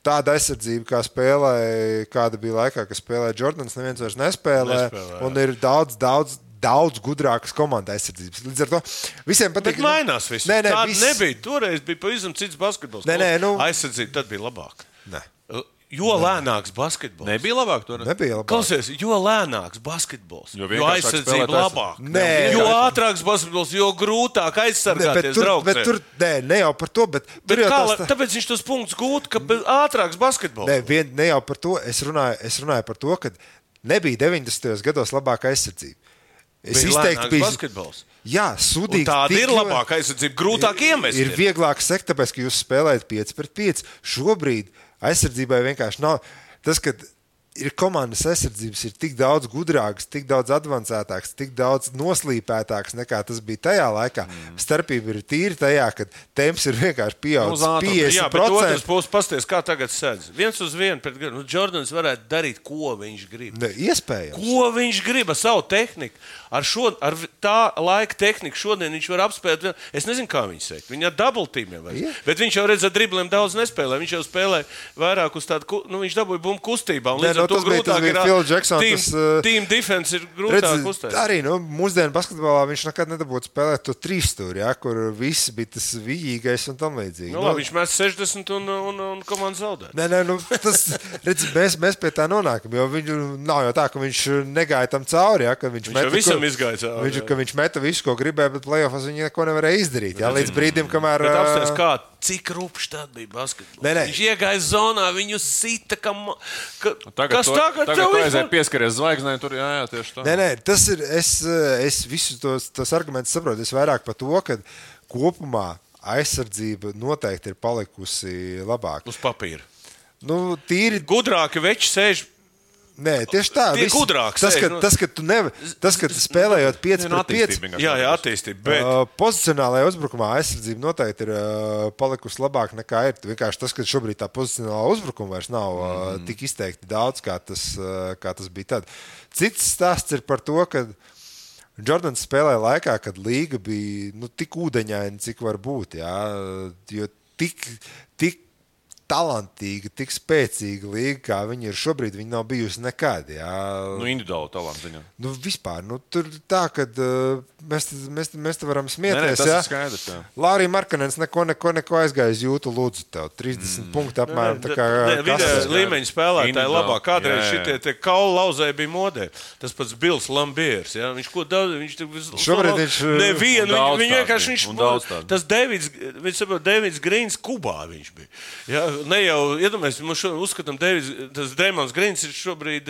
tāda aizsardzība, kā spēlēja, kāda bija laikā, kad spēlēja Jordans, neviens vairs nespēlē. Un ir daudz gudrākas komandas aizsardzības. Līdz ar to visiem patīk. Bet mainās viss. Tāda nebija. Toreiz bija pavisam cits basketbols. Aizsardzība tad bija labāka. Nē. Jo lēnāks basketbols. Nebija labāk tur. Klausies, jo lēnāks basketbols. Jo aizsardzība labāk. Jo ātrāks basketbols, jo grūtāk aizsargāties draugs. Ne jau par to, bet tāpēc viņš tos punktus gūt, ka ātrāks basketbols. Ne jau par to. Es runāju par to, ka nebija 90. gados labāka aizsardzība. Es izteikti biju basketbols. Jā, sudīgi. Tāda ir labāka aizsardzība, grūtāk iemest. Ir vieglāk sekt, tāpēc, ka jūs spēlējat 5-5. Šobrīd aizsardzībai vienkārši nav. Tas, ka ir komandas aizsardzības, ir tik daudz gudrākas, tik daudz advancētākas, tik daudz noslīpētākas nekā tas bija tajā laikā. Starpība ir tīri tajā, ka temps ir vienkārši pieaudzis 50%. Jā, bet otrs puses pasties, kā tagad sēdz. 1-1 pret Jordans varētu darīt, ko viņš grib. Iespējams. Ko viņš grib ar savu tehniku. Ar tā laika tehniku šodien viņš var apspēlēt. Es nezinu, kā viņš sēk. Viņa ar double teamiem vairs. Yeah. Bet viņš jau redz, ar dribliem daudz nespēlē. Viņš jau spēlē vairāk uz tādu, viņš dabūja bumbu kustībā. Un līdz ar to grūtāk ir team defense ir grūtāk uztaisīt. Arī mūsdienu basketbolā viņš nekad nedabūtu spēlēt to 3 stūri, ja, kur viss bija tas vijīgais un tam līdzīgi. Labi, viņš mēs 60 un komanda zaudē. Nē, tas, redz, mēs pie tā nonākam, jo nav jau tā, ka viņš negāja tam cauri, ja, ka viņš viņš meta visu, ko gribēja, bet playoffs viņi neko nevarēja izdarīt. Jā, līdz brīdim, kamēr... Bet apsties, kā, cik rupšs tad bija basketbols. Viņš iegāja zonā, viņu sita, Tagad tu aizēji pieskaries zvaigznē, tur jā, tieši tā. Nē, tas ir, es visus tos argumentus saprotu. Es vairāk par to, ka kopumā aizsardzība noteikti ir palikusi labāk. Uz papīra. Tīri... Gudrāki veči sēž. Nē, tieši tā. Tie gudrāks. Tas, ka tu spēlējot 5-5. Jā, attīstība. Bet... Pozicionālajā uzbrukumā aizsardzība noteikti ir palikusi labāk nekā ir. Vienkārši tas, ka šobrīd tā pozicionālā uzbrukuma vairs nav tik izteikti daudz, kā tas bija tad. Cits stāsts ir par to, ka Jordans spēlēja laikā, kad līga bija tik ūdeņaina, cik var būt. Jā, jo tik talantīga, tik spēcīga līga, kā viņi ir šobrīd, viņi nav bijusi nekad. Jā. Individuāli talanti viņam. Vispār. Tur tā, ka mēs te varam smieties. Tas ir skaidrs. Lārija Markanens neko aizgāja uz jūtu lūdzu tev. 30 punkti apmēram. Vidējais līmeņa spēlētāji labāk. Kādreiz šitie kaulu lauzēji bija modē. Tas pats Bills Lambiers. Ja? Viņš ko daudz... Šobrīd viņš... Nevienu. Viņš vienkārši... Tas Davids Grīns Kubā viņš bija. Ja? ne jau iedomājamies, mums uzskatām, tas Dreimons Grīns ir šobrīd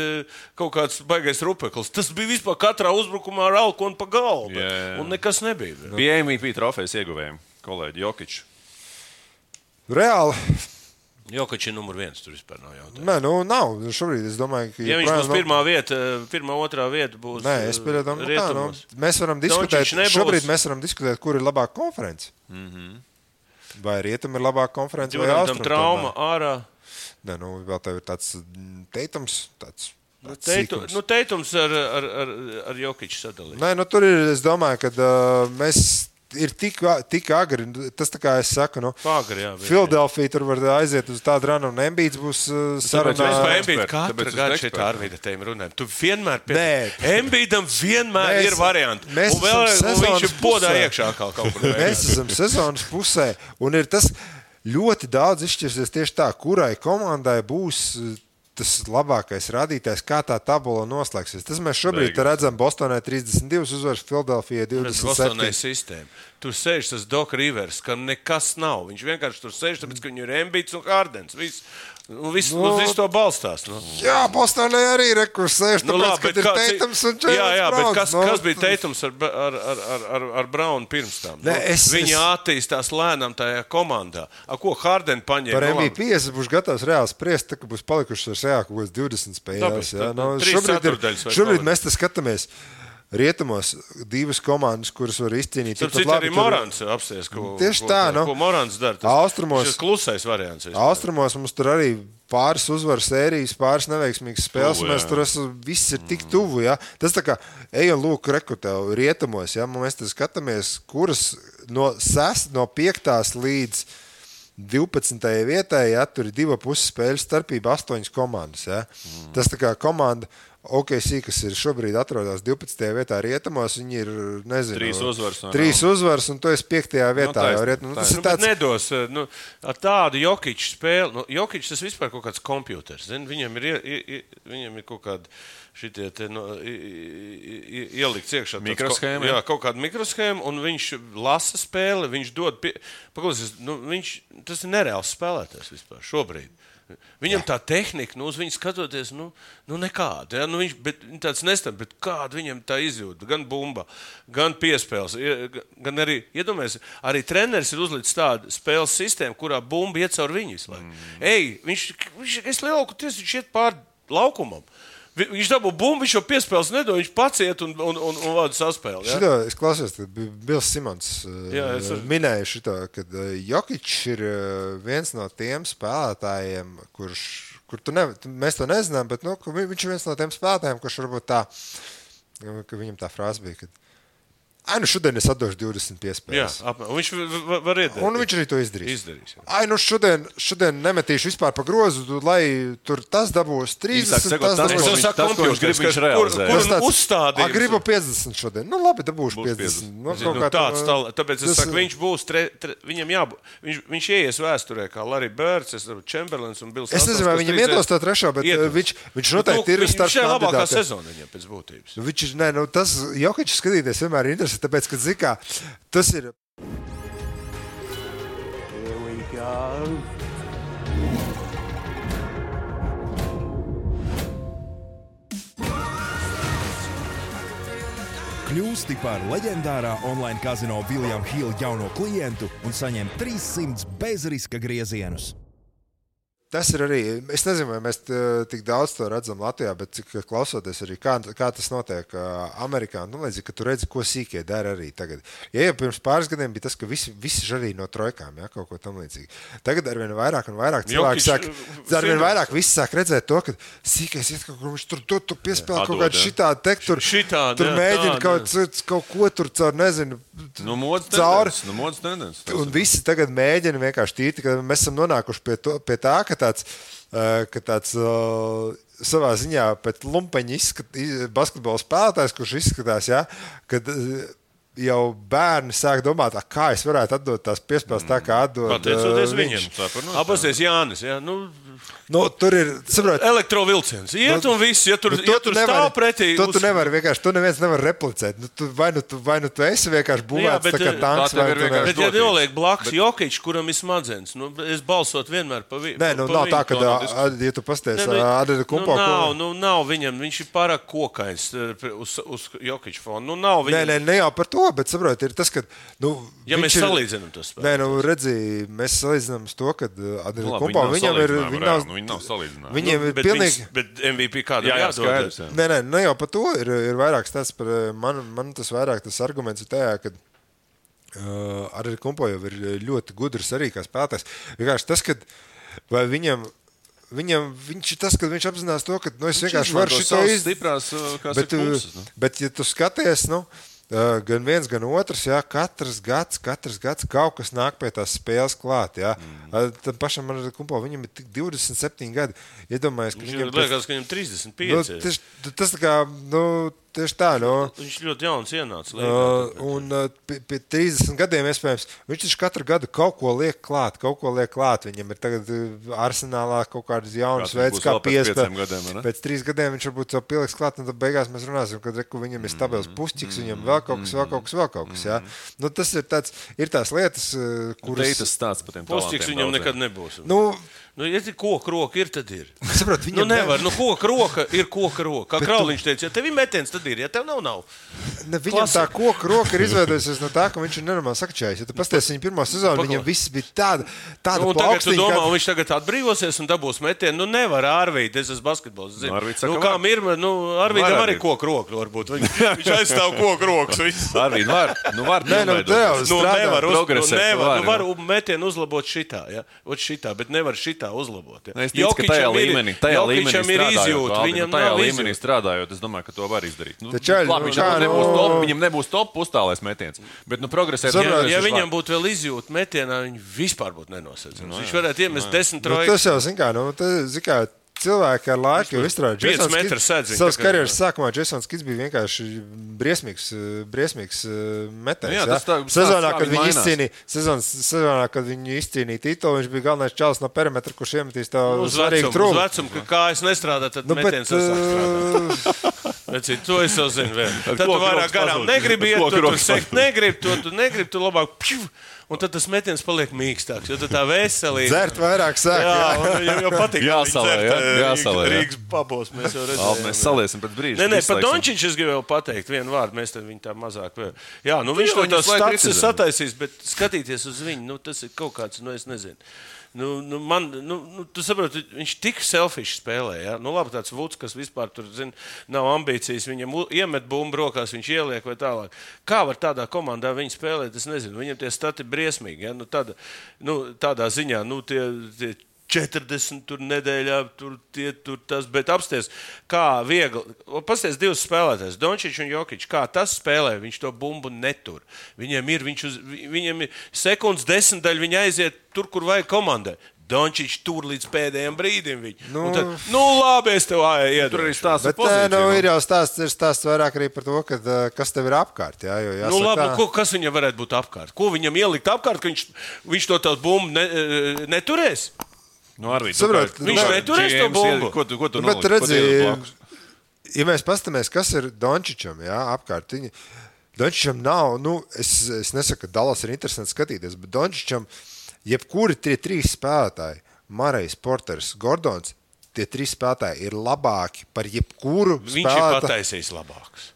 kaut kāds baigais rupeklis. Tas bija vispār katrā uzbrukumā ar alkonu pa galvu, un nekas nebija. Bija MVP trofejas ieguvējiem, kolēģi Jokičs. Reāli. Jokičs ir numur 1, tur vispār nav jautājumu. Nē, nav. Šobrīd es domāju, ka... Ja viņš būs pirmā, otrā vieta būs rietumos. Mēs varam diskutēt, šobrīd mēs varam diskutēt, kur ir labāka konference. Vai rietum ir labāka konference vai austrumu. Trauma ārā. Nē, vēl tev ir tāds Teitums, Teitums ar Jokiču sadalīt. Nē, tur ir, es domāju, ka mēs... Ir tik agri, tas tā kā es saku, Filadelfija tur var aiziet uz tādu ranu, un Embiids būs sarunā. Mēs Embiidu katru gadu šeit Arvīda tēm runājam. Tu vienmēr Embiidam vienmēr ir varianti. Un viņš ir podā iekšā kaut kur. Mēs esam sezonas pusē, un ir tas ļoti daudz izšķirsies tieši tā, kurai komandai būs tas labākais rādītājs, kā tā tabula noslēgsies. Tas mēs šobrīd redzam Bostonai 32 uzvaras, Filadelfijai 27. Bostonai sistēma. Tur sēž tas Doc Rivers, ka nekas nav. Viņš vienkārši tur sēž, tāpēc, ka viņu ir Embiids un Hardens. Viss to balstās. Jā, Bostonai arī rekurs sēž, tāpēc, ka ir Teitums un Jaylen Browns. Bet kas bija Teitums ar Brownu pirms tam? Viņi attīstās lēnām tajā komandā. Ko Harden paņēma? Par MVP es būšu gatavs reāli spriest, ka būs palikušas ar sejā kaut kāds 20 spēlēs. Šobrīd mēs te skatāmies. Rietumos divas komandas, kuras var izcīnīt. Tur arī Morants apsties, ko Morants dara. Tas klusais variants. Austrumos mums tur arī pāris uzvaru sērijas, pāris neveiksmīgas spēles. Mēs tur viss ir tik tuvu. Ja? Tas tā kā ejam lūk rekrutev rietumos. Ja? Mēs te skatāmies, kuras no 5. līdz 12. vietai, ja? Tur ir 2,5 spēļu starpība 8 komandas. Ja? Tas tā kā komanda OKC, kas ir šobrīd atrodas 12. vietā rietumos, viņi ir, nezinu, 3 uzvaras, un tu esi 5. vietā. Tas ir tāds... Nedos, ar tādu Jokiču spēli, Jokičs tas vispār kaut kāds kompjuters, viņam ir kaut kādi šitie te, ielikts iekšā. Mikroshēma. Jā, kaut kāda mikroshēma, un viņš lasa spēli, viņš dod, paklausies, tas ir nereāls spēlētājs vispār šobrīd. Viņam tā tehnika, uz viņu skatoties, nekāda. Ja? Viņš tāds nestab, bet kāda viņam tā izjūta, gan bumba, gan piespēles, gan arī, iedomājies, arī treneris ir uzlicis tādu spēles sistēmu, kurā bumba iet caur viņu visu laiku. Es lielāku tiesa, viņš iet pār laukumam. Viņš dabū bumbu, viņš jau piespēles nedod, viņš paciet un vada saspēli. Ja? Šito, es klausījos, tad Bils Simons minēja šito, kad Jokičs ir viens no tiem spēlētājiem, mēs to nezinām, bet viņš ir viens no tiem spēlētājiem, kurš varbūt tā, ka viņam tā frāze bija, kad šodien es atdošu 20 piespēles. Jā, viņš var iedēt. Un viņš arī to izdarīs. Šodien nemetīšu vispār pa grozu, lai tur tas dabūs 30, tas dabūs. Viņš grib viņš realizēt. Kur uzstādījums? Gribu 50 šodien. Labi, dabūšu 50. Tāpēc es saku, viņš būs, viņam jābūt, viņš ieies vēsturē kā Larry Birds, Chamberlains un Bills. Es nezinu, vai viņam iedos to trešo, bet viņš noteikti ir starp kandidātiem. Viņš ir labākā sezona viņam pēc būtības. Tas Jokičs skatīties vienmēr ir interesanti. Tāpēc, ka zikā, tas ir... Here we go. Kļūsti par leģendārā online kazino William Hill jauno klientu un saņem 300 bezriska griezienus. Tas ir arī, es nezinu, vai mēs tik daudz to redzam Latvijā, bet cik klausoties arī, kā tas notiek Amerikā, līdzīgi, ka tu redzi, ko sīkie dara arī tagad. Ja jau pirms pāris gadiem bija tas, ka visi žarīja no trojkām, ja, kaut ko tam līdzīgi. Tagad arvien vairāk un vairāk cilvēki arvien vairāk visi sāk redzēt to, ka sīkais iet kaut kur, viņš tur piespēlē kaut kādu šitādu tektu, tur mēģina kaut ko tur caur, nezinu, cauri. Un visi tagad mēģina vienkārši tīti, ka mēs esam nonākuši pie tā, ka tāds savā ziņā pēc lumpeņa basketbola spēlētājs, kurš izskatās, ja, kad jau bērni sāk domāt, kā es varētu atdot tās piespēles tā, kā atdod Pateicoties viņš. viņam. Apasties Jānis, jā. Tur ir, saprot, elektrovilciens. Iet un viss, ja tur stāv pretī. Tu nevari vienkārši, tu neviens nevar replicēt. Vai nu tu esi vienkārši būvēts tā kā tanks, vai tu nevari. Bet ja noliek blakus Jokičs, kuram ir smadzenes, es balsot vienmēr pa viņu. Nē, nav tā, ka, ja tu pasties Adeda Kumpo. Nav viņam, viņš ir pārāk kokains uz Jokiča fonu. Nav viņam. Ne jau par to, bet saprot, ir tas, ka, ja mēs salīdzinām to spēlē. Nē, redzi, mēs salīdzinām to, ka Adeda Kumpo viņam ir, viņi nav salīdzinājumi. Viņiem ir pilnīgi. Bet MVP kādam jādod. Nē, jau par to ir vairāk stāsts par, man tas vairāk tas arguments ir tajā, ka Adeda Kumpo jau ir ļoti gudrs arī kā spēlētājs. Vienkārši tas, ka vai viņam viņš ir tas, ka viņš apzinās to, ka es vienkārši varu šito izdarīt. Bet, ja tu skaties, gan viens, gan otrs, jā, katrs gads kaut kas nāk pie tās spēles klāt. Tam pašam Adeda Kumpo, viņam ir tik 27 gadi. Iedomājies, ka viņam liekas, ka viņam 35. Tas tā kā, tieši tā, Viņš ļoti jauns ienāca. Un pie 30 gadiem, iespējams, viņš taču katru gadu kaut ko liek klāt. Viņam ir tagad arsenālā kaut kādas jaunas veids, kā piespēlēt. Pēc 3 gadiem viņš varbūt jau pieliks klāt, un tad beigās mēs runāsim, kad viņam ir stabils pušķiks, viņam vēl kaut kas. Jā. Tas ir tās lietas, kuras... Tas stāsts par tiem pušķiks viņam nekad nebūs. Ja koka roka ir, tad ir. Saprot, nevar. Koka roka ir koka roka. Kā Krauliņš teica, ja tev ir metiens, tad ir. Ja tev nav. Viņam tā koka roka ir izveidojusies no tā, ka viņš ir nenormāli sakačājis. Ja tu pasties viņa pirmo sezonu, viņam viss bija tāda un tagad tu domā, viņš tagad atbrīvosies un dabūs metienu. Nevar Arvīd, es esmu basketbols. Kā Mirma, Arvīdam arī koka roka varbūt. Viņš aizstāv koka rokas. Arvīd var. Var metienu uzlabot šitā. Bet nevar šitā uzlabot. Es ticu, ka tajā līmenī strādājot, es domāju, ka to var izdarīt. Viņam nebūs top uzstālēs metiens, bet progresēt. Ja viņam būtu vēl izjūta metienā, viņi vispār būtu nenosacījums. Viņš varētu iemest 10 trojus. Tas jau, zin kā, cilvēki ar laiku jau izstrādāja. Savas karjeras sākumā Jasons Kids bija vienkārši briesmīgs metējs. Sezonā, kad viņi izcīnīja titulu, viņš bija galvenais čalis no perimetra, kurš iemetīs tev svarīgu trūkumu. Uz vecumu, kā es nestrādāju, tad metiens sasāk. To es jau zinu vēl. Tad tu vairāk garām negribi iet, tu sekt negribi, tu labāk un tad tas metiens paliek mīkstāks, jo tā veselība. Dzert vairāk sāk. Jā, jau patīk. Jāsalē. Rīgas pabos mēs jau redzējām. Mēs saliesim pēc brīža. Nē, par Dončiču es gribēju pateikt vienu vārdu, mēs tad viņu tā mazāk vēl. Jā, viņš to tās stats ir sataisījis, bet skatīties uz viņu, tas ir kaut kāds, es nezinu. Tu saproti, viņš tik selfish spēlē. Ja? Labi, tāds Vuds, kas vispār tur, nav ambīcijas, viņam iemet bumbu rokās, viņš ieliek vai tālāk. Kā var tādā komandā viņi spēlēt, es nezinu. Viņam tie stati briesmīgi. Ja? Tādā ziņā, tie 40 tur nedēļā, tur tas, bet apsties, kā viegli. Pasties divus spēlētājs, Dončičs un Jokičs, kā tas spēlē, viņš to bumbu netur. Viņam ir sekundes 10 daļa, viņi aiziet tur, kur vajag komandai. Dončičs tur līdz pēdējiem brīdim viņu. Tad, labi, es tev iedodu. Tur arī stāsts par pozīciju. Ir jau stāsts vairāk arī par to, kas tev ir apkārt. Jā, labi, kas viņam varētu būt apkārt? Ko viņam ielikt apkārt, ka viņš to tā bumbu neturēs? Arvīd, viņš neturēs to bumbu. Ko tu bet redzi, ja mēs pastamies, kas ir Dončičam, apkārt. Dončičam nav, es nesaku, ka Dallas ir interesanti skatīties, bet Dončičam jebkuri tie 3 spēlētāji, Marejs, Porters, Gordons, tie 3 spēlētāji ir labāki par jebkuru spēlētāju. Viņš ir pataisījis labāks.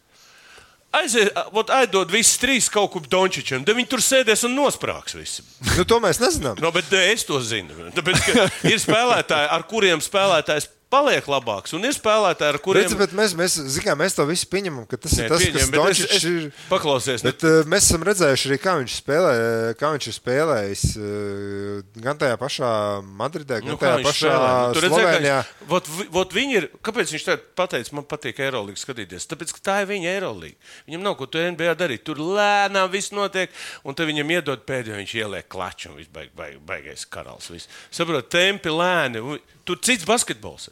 Aizdod visus 3 kaut kur Dončičam, tad viņi tur sēdēs un nosprāks visi. To mēs nezinām. Bet es to zinu. Tāpēc, ka ir spēlētāji, ar kuriem spēlētājs paliek labāks, un ir spēlētāji, ar kuriem... Bet mēs to visu pieņemam, ka tas ir tas, kas Dončičs ir... Paklausies. Bet mēs esam redzējuši arī, kā viņš ir spēlējis gan tajā pašā Madridē, gan tajā pašā Slovenijā. Viņi ir... Kāpēc viņš tagad pateica, man patīk Eirolīgu skatīties? Tāpēc, ka tā ir viņa Eirolīga. Viņam nav ko tu NBA darīt. Tur lēnām viss notiek, un te viņam iedod pēdējo, viņš ieliek klaču, un viss baigais karals. Saprot, tempi lēni. Tur cits basketbols.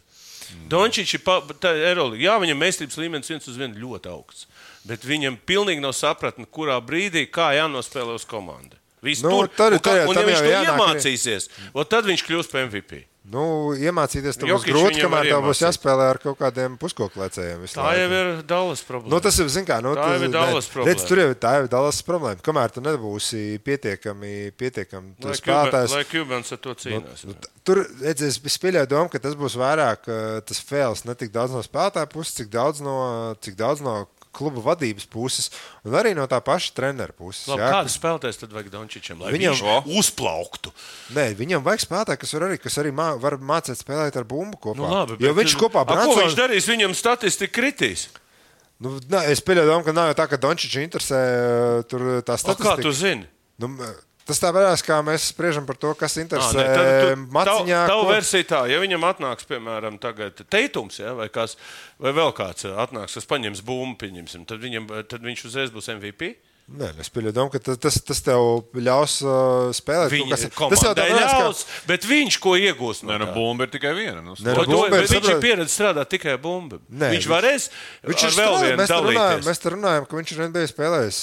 Dončičs ir Eirolīga. Jā, viņam meistarības līmenis 1-1 ļoti augsts. bet viņam pilnīgi nav sapratni, kurā brīdī kā jānospēlē uz komandu. Nu, tad un ja viņš to jānāk iemācīsies, tad viņš kļūs par MVP. Nu, iemācīties tam būs Jokić grūti, viņam kamēr arī tev būs iemācīs. jāspēlē ar kaut kādiem puskoklecējiem. Tā jau ir Dallas problēma. Nu, tas ir, zin kā, Tā jau ir Dallas problēma. Redz, tur jau tā jau ir Dallas problēma. Kamēr tu nebūsi pietiekami spēlētājs. Lai Cubans ar to cīnās. Tur, redz, es pieļauju domu, ka tas būs vairāk tas fails ne tik daudz no spēlētāja puses, cik daudz no kluba vadības puses un arī no tā paša trenera puses. Labi, kādu spēlētājs tad vajag Dončičam, lai viņš uzplauktu? Nē, viņam vajag spēlētāju, kas arī var mācīt spēlēt ar bumbu kopā. Nu, labi, jo viņš kopā ko viņš darīs? Viņam statistika kritīs. Nu, es pieļauju domu, ka nav jau tā, ka Dončiču interesē tur tā statistika. Kā tu zini? Nu, tas tā varēs, kā mēs spriežam par to, kas interesē Maciņā. Tavu versiju tā, ja viņam atnāks, piemēram, tagad Teitums, ja, vai vēl kāds atnāks, kas paņems bumbu, pieņemsim, tad viņš uzreiz būs MVP? Nē, es pieļauju domu, ka tas tev ļaus spēlēt. Viņa komandai ļaus, bet viņš ko iegūs no tā? Nē, bumba ir tikai viena. Bet viņš ir pieredze strādāt tikai bumbu. Viņš varēs ar vēl vienu dalīties. Mēs te runājam, ka viņš ir NBA spēlējis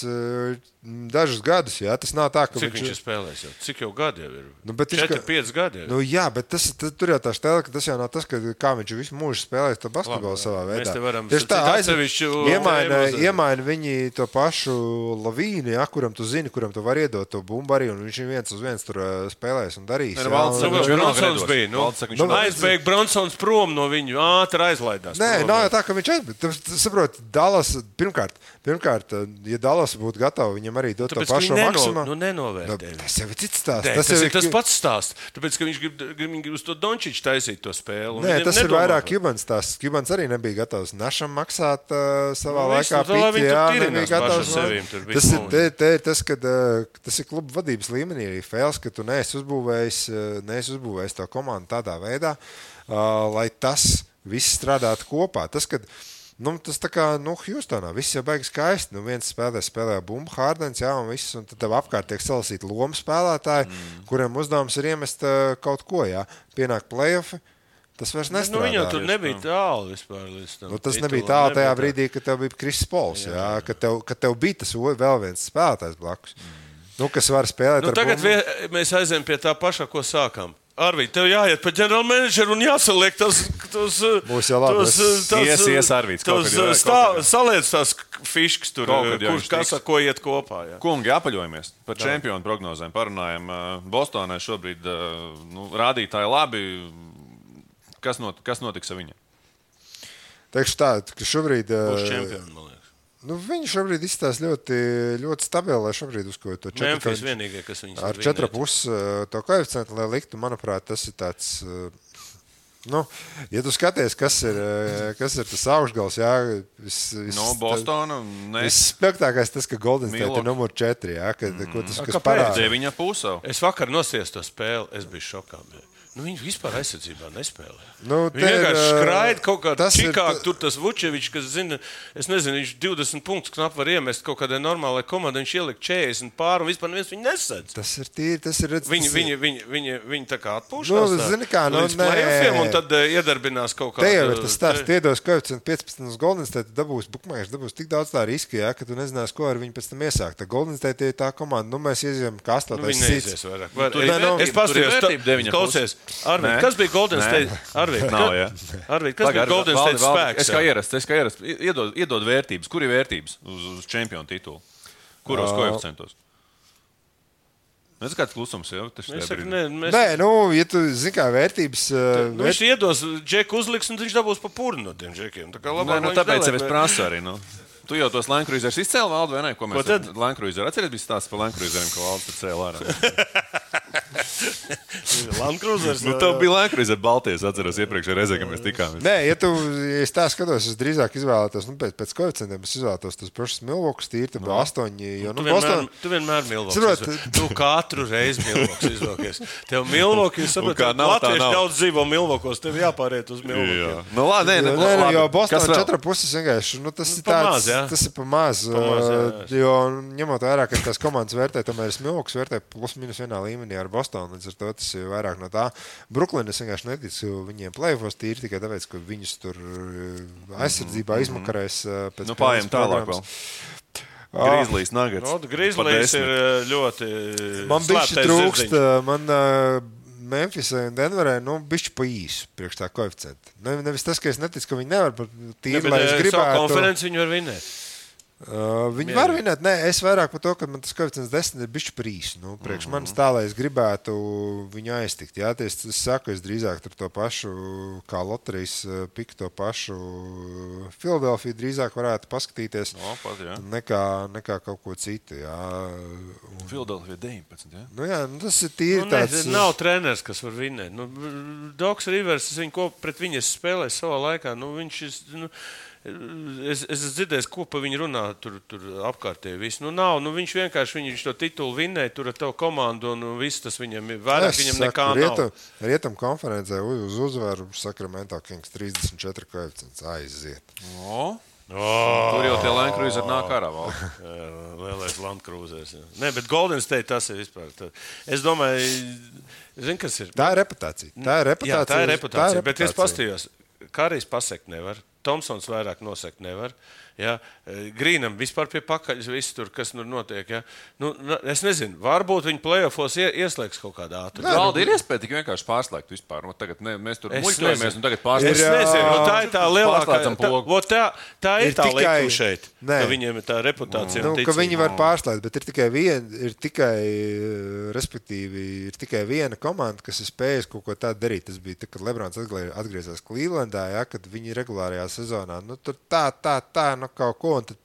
dažus gadus, jā. Tas nav tā, ka Cik viņš ir spēlējis jau? Cik jau gadi jau ir? Nu, 4-5 gadi jau. Nu, jā, bet tur jau tā stēle, ka tas jau nav tas, kā viņš visu mūžu spēlējis to basketbolu savā veidā. Mēs te varam iemaina viņi to pašu Lavīnu, ja, kuram tu zini, kuram tu vari iedot to bumbu arī, un viņš viens uz viens tur spēlēs un darīs. Bronsons bija. Aizbēg Bronsons prom no viņu, ātri aizlaidās. Nē, nav jau tā, ka viņš aizbēg. Saprot, Dallas, pirmkārt, ja Dallas būtu gatava, viņam arī dot to pašu maksimumu. Nu, nenovērtē. Tas jau ir cits stāsts. Tas ir tas pats stāsts. Tāpēc, ka viņš grib uz to Dončiču taisīt to spēli. Nē, tas ir vairāk Cubans stāsts. Cubans arī nebija gatavs Našam maksāt savā laikā piti. Jā, nebija gatavs. Tas ir kluba vadības līmenī arī fails, ka tu neesi uzbūvējis to komandu tādā veidā, lai tas viss strādātu kopā. Tas tā kā, Hjūstonā viss jau beigas skaisti. Viens spēlē bumbu, Hārdens, jā, un viss, un tad tev apkārt tiek salasīti lomu spēlētāji, kuriem uzdevums ir iemest kaut ko, jā. Pienāk play-offi, tas vairs nestrādā. Viņam tur nebija tālu vispār līdz tam. Tas nebija tālu tajā brīdī, kad tev bija Kris Pols, jā, kad tev bija tas vēl viens spēlētājs blakus, kas var spēlēt ar tagad bumbu. Mēs aizējam pie tā paša, ko sākām. Arvīd, tev jāiet pa ģenerālmenedžeru un jāsaliek Būs jau labi. Arvīds. Saliec tās fiškas tur, kas ar ko iet kopā. Jā. Kungi, apaļojamies par čempionu prognozēm. Parunājam, Bostonai šobrīd rādītāji labi. Kas notiks ar viņu? Teikšu tā, ka šobrīd... Būs čempioni, man liekas. Viņi šobrīd izstāsta ļoti, ļoti stabili, lai šobrīd uzkoju to 4. Memphis vienīgie, kas viņus ar 4,5 to koeficientu, lai liktu, manuprāt, tas ir tāds... ja tu skaties, kas ir tas augšgals, jā... Bostona, ne. Visspēktākais tas, ka Golden State ir numur 4, jā, kas parāda. 9,5. Es vakar nosties to spēli, es biju šokā. Viņi vispār aizsardzībā nespēlē. Viņi vienkārši skraida kaut kādā Čikāgā. Tur tas Vučevičs, kas zina, es nezinu, viņš 20 punktus knap var iemest kaut kādai normālai komandai. Viņš ielika 40 pār un vispār neviens viņu nesedz. Tas ir tīri, tas ir... Viņi tā kā atpūšās zini kā, līdz play-offiem un tad iedarbinās kaut kādā... Te jau ir tas stāsts, iedos koeficientu 15 uz Golden State, dabūs tik daudz tā riski, jā, ka tu nezinās, ko ar viņu pēc tam iesākt. Golden State ir tā komanda, mēs ieziem kā 8. Viņi neizies vairāk. Es pasties, Arvīd, kas bija Golden State? Arvīd, kas bija Golden State spēks? Es kā ierasts. Iedod vērtības. Kur ir vērtības uz čempionu titulu? Kuros koeficientos? Mēs kāds klusums jau. Nē, ja tu zini kā vērtības... Viņš iedos džeku uzliks un viņš dabūs pa purnu no tiem džekiem. Tāpēc es prasu arī, Tu jau tos Land Cruisers izcēli, Valdi, vai ne? Ko mēs Land Cruiser atceries, bija stāsts par Land Cruiseriem, ko Valdi tur cēla ārā. Land Cruisers. Tev bija Land Cruiser Baltijas, atceros iepriekšējā reizē, kad mēs tikāmies. Nē, ja es tā skatos, es drīzāk izvēlētos, pēc koeficientiem es izvēlētos tos pašus Milvokus tīri, tad 8, jo, Tu vienmēr Milvokus. Tu katru reizi Milvokus izvēlēties. Tev Milvoki, jūs saprotat, latvieši daudz dzīvo Milvokos, tev jāpāriet uz Milvokiem. Labi, jo Bostonā 4,5 vienkārši, tas ir tāds, tas ir pa maz, jo ņemot vairāk, ka tās komandas vērtē, tomēr es Milvokus vērtē plus minus vienā līmenī ar Bostonu, līdz ar to tas ir vairāk vairāk no tā. Brooklyn es vienkārši neticu viņiem play-offos tīri tikai tāpēc, ka viņus tur aizsardzībā izmakarēs pēc pārējiem tālāk vēl. Grizzlies Nuggets. Grizzlies ir ļoti man bišķi trūkst, man Memphisai un Denverai, bišķi pa īsu priekš tā koeficienta. Nevis tas, ka es neticu, ka viņi nevar, bet tīri, lai es gribētu. Savu konferenci viņi var vinēt. Viņi var vinēt, nē, es vairāk par to, ka man tas koeficients 10 ir bišķi par īsu. Priekš manis tā, lai es gribētu viņu aiztikt. Jā, es saku, es drīzāk tur to pašu, kā loterijas piku to pašu Philadelphia drīzāk varētu paskatīties nekā kaut ko citu. Philadelphia 19, jā? Jā, tas ir tīri tāds. Nav treneris, kas var vinēt. Doks Rivers, pret viņu es spēlēju savā laikā. Viņš ir... Es dzirdēju, ko pa viņu runā tur apkārtēji. Viņš vienkārši viņš to titulu vinnēja tur ar tavu komandu un viss tas viņam ir vairāk, viņam nekā nav. Rietum konferencē uz uzvaru Sacramento Kings 34 koeficients aiziet. Tur jau tie Land Cruiser nāk ārā vēl. Lielais Land Cruisers. Nē, bet Golden State tas ir vispār. Es domāju, kas ir? Tā ir reputācija. Jā, tā ir reputācija. Bet es pastījos, Karijs pasekt nevar. Tomsons vairāk nosekt nevar. Ja? Grīnam vispār pie pakaļas viss tur, kas tur notiek. Ja? Es nezinu, varbūt viņi play-offos ieslēgs kaut kādā ātrumā. Valdi ir iespēja tik vienkārši pārslēgt vispār. Tagad mēs tur muļķojamies un tagad pārslēgsim. Es nezinu, tā ir tā lielākā. Tā ir tā likuma šeit, ka viņiem ir tā reputācija. Ka viņi var pārslēgt, bet ir tikai viena komanda, kas ir spējusi kaut ko tādu darīt. Tas bija, kad Lebrons atgriezās Clevelandā, ja, kad viņi regulārajā sezonā. Tur tā, kaut ko. Un tad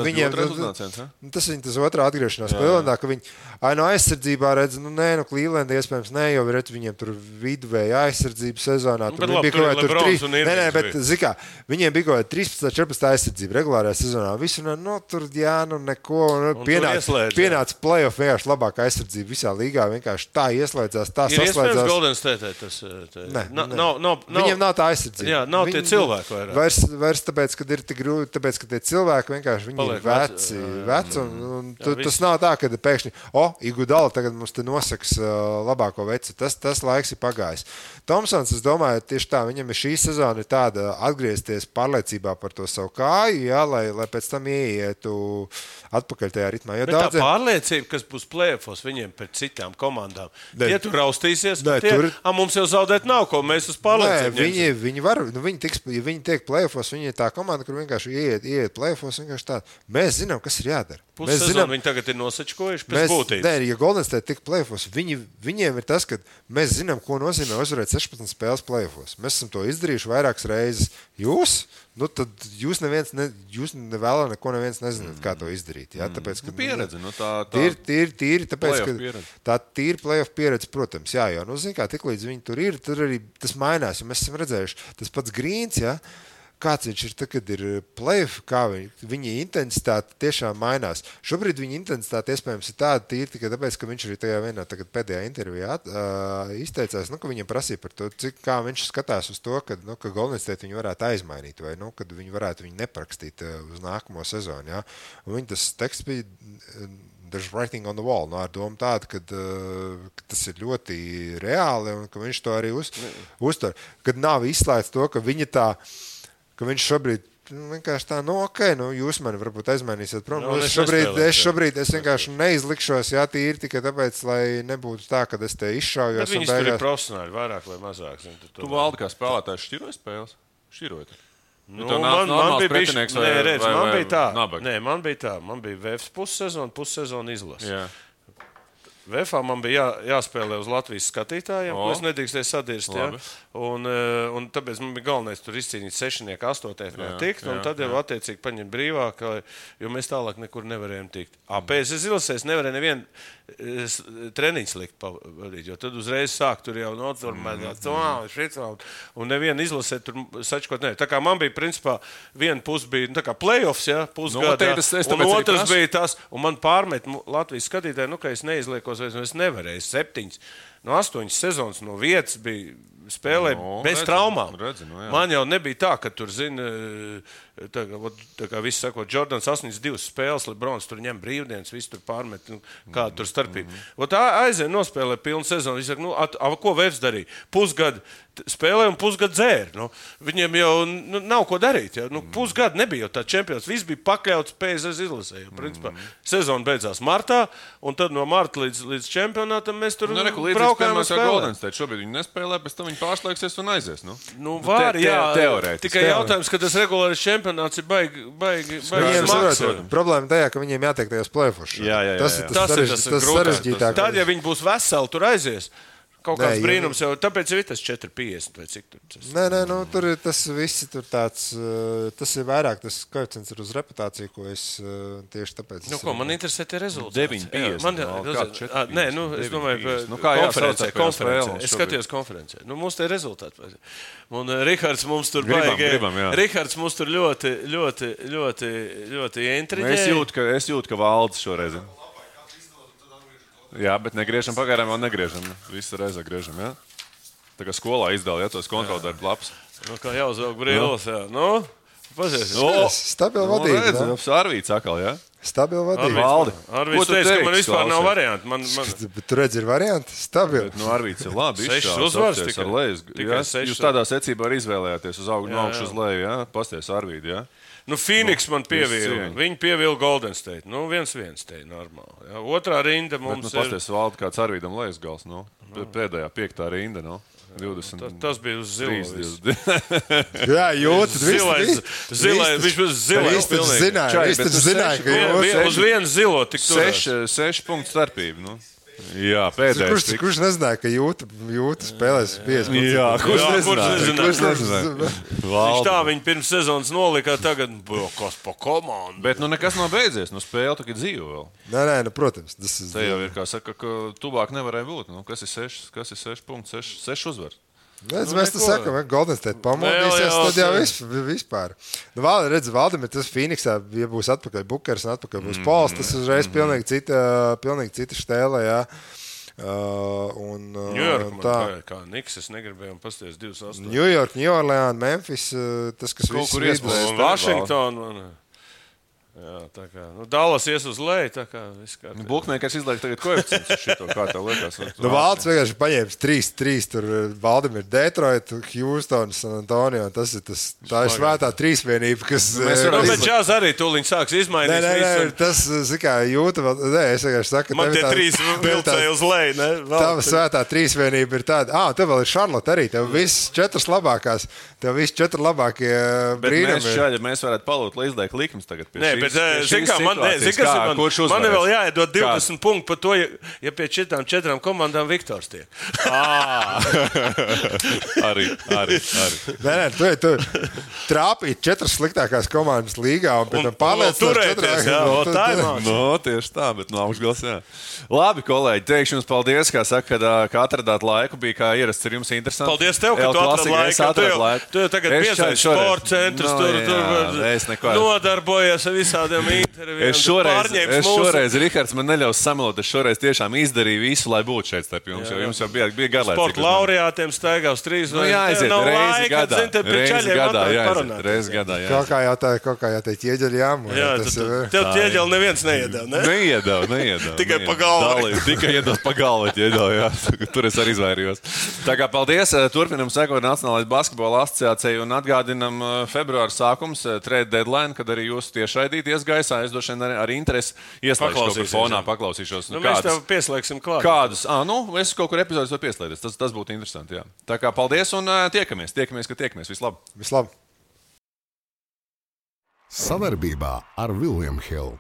viņiem tas otrā atgriešanās Clevelandā, ka viņi aizsardzībā redz, Cleveland iespējams jo redz viņiem tur viduvēja aizsardzība sezonā. Tur bija kaut kā 3. Bet zikā, viņiem bija kaut kā 13-14 aizsardzība regulārajā sezonā. Visu tur neko. Pienāca play-off vienkārši labākā aizsardzība visā līgā. Vienkārši tā ieslēdzās, tā saslēdzās. Ir iespējams Golden State tas. Viņiem nav tā aizsardzība. Jā, nav tie cilvēki vairāk. Vairs tāpēc, ka ir tik grūti, tāpēc, ka tie cilvēki vienkārši viņi ir veci un tas nav tā, ka pēkšņi, Igudala tagad mums te nosaks labāko veci. Tas laiks ir pagājis. Tomsons, es domāju, tieši tā, viņam ir šī sezona ir tāda atgriezties pārliecībā par to savu kāju, jā, lai pēc tam ieietu atpakaļ tajā ritmā. Bet tā pārliecība, kas būs play-offos viņiem pret citām komandām, tie tur raustīsies, mums jau zaudēt nav ko, mēs uz pārliecību. Viņi var, ja viņi tiek play-offos, viņi ir tā komanda, kur vienkārši ieiet play-offos, vienkārši tā. Mēs zinām, kas ir jādara. Pussezonu viņi tagad ir nosačkojuši pēc būtības. Nē, ja Golden State tik play-offos, viņiem ir tas, ka mēs zinām, ko nozīmē uzvarēt 16 spēles play-offos. Mēs esam to izdarījuši vairākas reizes. Tad jūs nevēlā neko neviens nezināt, kā to izdarīt. Ja? Tāpēc, ka, pieredze. Tīri, tāpēc, ka tā tīri play-off pieredze, protams, jā, jo, kā tiklīdz viņi tur ir, tur arī tas mainās, jo mēs esam redzējuši, tas pats Grīns, ja? Kāds viņš ir, kad ir play-off, kā viņa intensitāte tiešām mainās. Šobrīd viņa intensitāte iespējams ir tāda tīri tikai tāpēc, ka viņš arī tajā vienā pēdējā intervijā izteicās, ka viņam prasīja par to, kā viņš skatās uz to, ka Golden State viņu varētu aizmainīt vai kad viņi varētu viņu neprakstīt uz nākamo sezonu. Ja? Un viņa tas teksts bija there's writing on the wall, ar domu tādu, ka tas ir ļoti reāli un ka viņš to arī uztver. Kad nav izslēgts to, ka viņa tā ka viņš šobrīd vienkārši tā, jūs mani varbūt aizmainīsiet prom. Es šobrīd vienkārši neizlikšos, tīri tikai tāpēc, lai nebūtu tā, ka es te izšaujos. Bet viņas tur ir profesionāli, vairāk vai mazāk. Tu Valdi kā spēlētājs šķiroja spēles? Šķirojot? Man bija tā. Man bija VFs pussezona izlase. Jā. VFā man bija jāspēlē uz Latvijas skatītājiem, ko es nedrīkstēju sadirst. Ja? Un tāpēc man bija galvenais tur izcīnīt 6, 8 tikt, un tad jau attiecīgi paņemt brīvāk, jo mēs tālāk nekur nevarējām tikt. PSS izlasēs nevarēja nevienu treniņu slikt pavadīt, jo tad uzreiz sāk tur jau noturmēt, un nevienu izlasē tur sačkot nevar. Tā kā man bija, principā, viena puse bija tā kā play-offs, ja, pusgadā, un otrs bija tas, un man pārmet Latvijas skatītāji, ka es neizliekos, es nevarēju 7, 8 sezonas no vietas bija spēlēja bez traumām. Jā. Man jau nebija tā, ka tur, zini, tā kā viss saka, Jordans 82 spēles, Lebrons tur ņem brīvdienas, viss tur pārmet, kāda tur starpība. Aizēja nospēlē pilnu sezonu, viņš saka, ko Vefs darīja? Pusgadu spēlē un pusgadu dzēra. Viņiem jau nav ko darīt. Pusgadu nebija jau tā čempions. Viss bija pakļauts PSV izlasē. Principā sezona beidzās martā, un tad no marta līdz čempionātam mēs tur braukājām uz Golden State. Šobrīd viņi nespēlē, pēc tam viņi pārslēgsies un aizies. Var, jā. Teorētiski. Tikai jautājums, ka tas regulārais čempionāts ir baigi smags. Problēma tajā, ka viņiem jātiek tajos play-offos. Tas ir tas sarežģītāk. Tad, ja viņi būs veseli, tur aizies. Kaut kāds brīnums jau, tāpēc ir tas 4,50 vai cik tur tas. Nē, tur ir tas viss tur tāds, tas ir vairāk, tas koeficients ir uz reputāciju, ko es tieši tāpēc. Man interesē tie rezultāti. 9,50. Nē, es domāju, konferencē. Es skatījos konferencē. Mums tie rezultāti. Un Rihards mums tur Rihards mums tur ļoti intriģē. Es jūtu, ka valdes šoreiz. Jā, bet negriežam pagaidām, vēl negriežam. Visu reizi griežam, jā. Tā kā skolā izdala, tos kontroldarbu labs. Kā jāuzvelk brīvos, jā. Pazies. Stabila vadība. Arvīts akal, jā. Stabila vadība. Valdi. Arvīts teica, ka man vispār nav varianti. Bet tu redzi, ir varianti? Stabila. Arvīts ir labi. 6 uzvars tikai. Jūs tādā secībā arī izvēlējāties uz augšu, no augšu uz leju, jā. Pasties Arvīti, jā. Phoenix man pievīla. Viņi pievīla Golden State. 1-1 te ir normāli. Jā. Otrā rinda mums ir. Pasties Valdi, kāds Arvīdam lejas gals, pēdējā 5. rinda, 20. Tas bija uz zilo. Jā, jūtas. Zilais, viņš bija zilais. Viņš zināja, ka jūtas. Uz vienu zilo tik turēs. 6 punktu starpība, Jā, pēdējais. Kurš nezināja, ka jūta spēlēs 5? Jā, kurš nezināja? Viņš tā viņa pirms sezonas nolikā, tagad kas pa komandu. Bet nekas nav beidzies, spēle tagad dzīvo vēl. Nē, protams. Te jau ir, kā saka, ka tuvāk nevarēja būt. Kas ir 6 punkti, 6 uzvaras? Mēs tā sakām, ka Golden State pamodīsies, tad jau vispār. Valdim ir tas Phoenixā, ja būs atpakaļ Bukers un atpakaļ būs Pols, tas uzreiz pilnīgi cita štēle, jā. New York, kā Niks, es negribēju pasties 2-8. New York, New Orleans, Memphis, tas, kas viss vidus. Washington, jā, tā kā. Dallas ies uz leju, tā kā viss kā. Bukmēkars izliek tagad koeficients uz šito, kā tev liekas. Valds vienkārši paņēmis 3-3, tur Valdim ir Detroit, Houston, San Antonio, tā ir svētā trīsvienība, kas... Bet Čās arī tūliņ sāks izmainīt. Nē, tas, kā jūta vēl... Nē, es vienkārši saku... Man tie 3 vilcēja uz leju, ne? Tava svētā trīsvienība ir tāda... Tev vēl ir Charlotte arī, tev viss 4 labākās, tev viss 4 labākie brīnumi. Mēs varētu palūt, lai izliek likums tagad pie šī. Man vēl jāiedod 20 punktu par to, ja pie 4 komandām Viktors tiek. Arī. Nē, tu trāpīt 4 sliktākās komandas līgā un pēc tam pārliecināt 4. Tieši tā, bet no augšgals, jā. Labi, kolēģi, teikšu jums paldies, kā saka, ka atradāt laiku, bija kā ierasts, ir jums interesanti. Paldies tev, ka tu atrad laiku. Tu jau tagad piesaisti sporta centrus, nodarbojies ar visādiem intervijiem. Es šoreiz, Rihards, man neļaus samelot, es šoreiz tiešām izdarīju visu, lai būtu šeit starp jums, jo jums jau bija garlaicīgi. Sporta laureātiem staigā uz 3. Jāaiziet, reizi gadā. Kaut kā jāteikt, ieģeļi jāmūr. Tev ieģeļi neviens neiedēv, ne? Neiedēv. Tikai pa galvu. Tikai iedod pa galvu, jā. Tur es arī izvairījos. Tā kā paldies, turpinam sekot Nacionālais basketbola asociācijai un atgādinam februāra sākums, trade deadline, kad arī jūs tiešraidīt iesgaisā. Es došu ar interesi ieslēgšu kaut kur fonā, paklausīšos. Mēs tev pieslēgsim klāt. Kādus? Es kaut kur epizodus var pieslēgties. Tas būtu interesanti, jā. Tā kā paldies un tiekamies, ka tiekamies. Vislab! Savarbībā ar William Hill.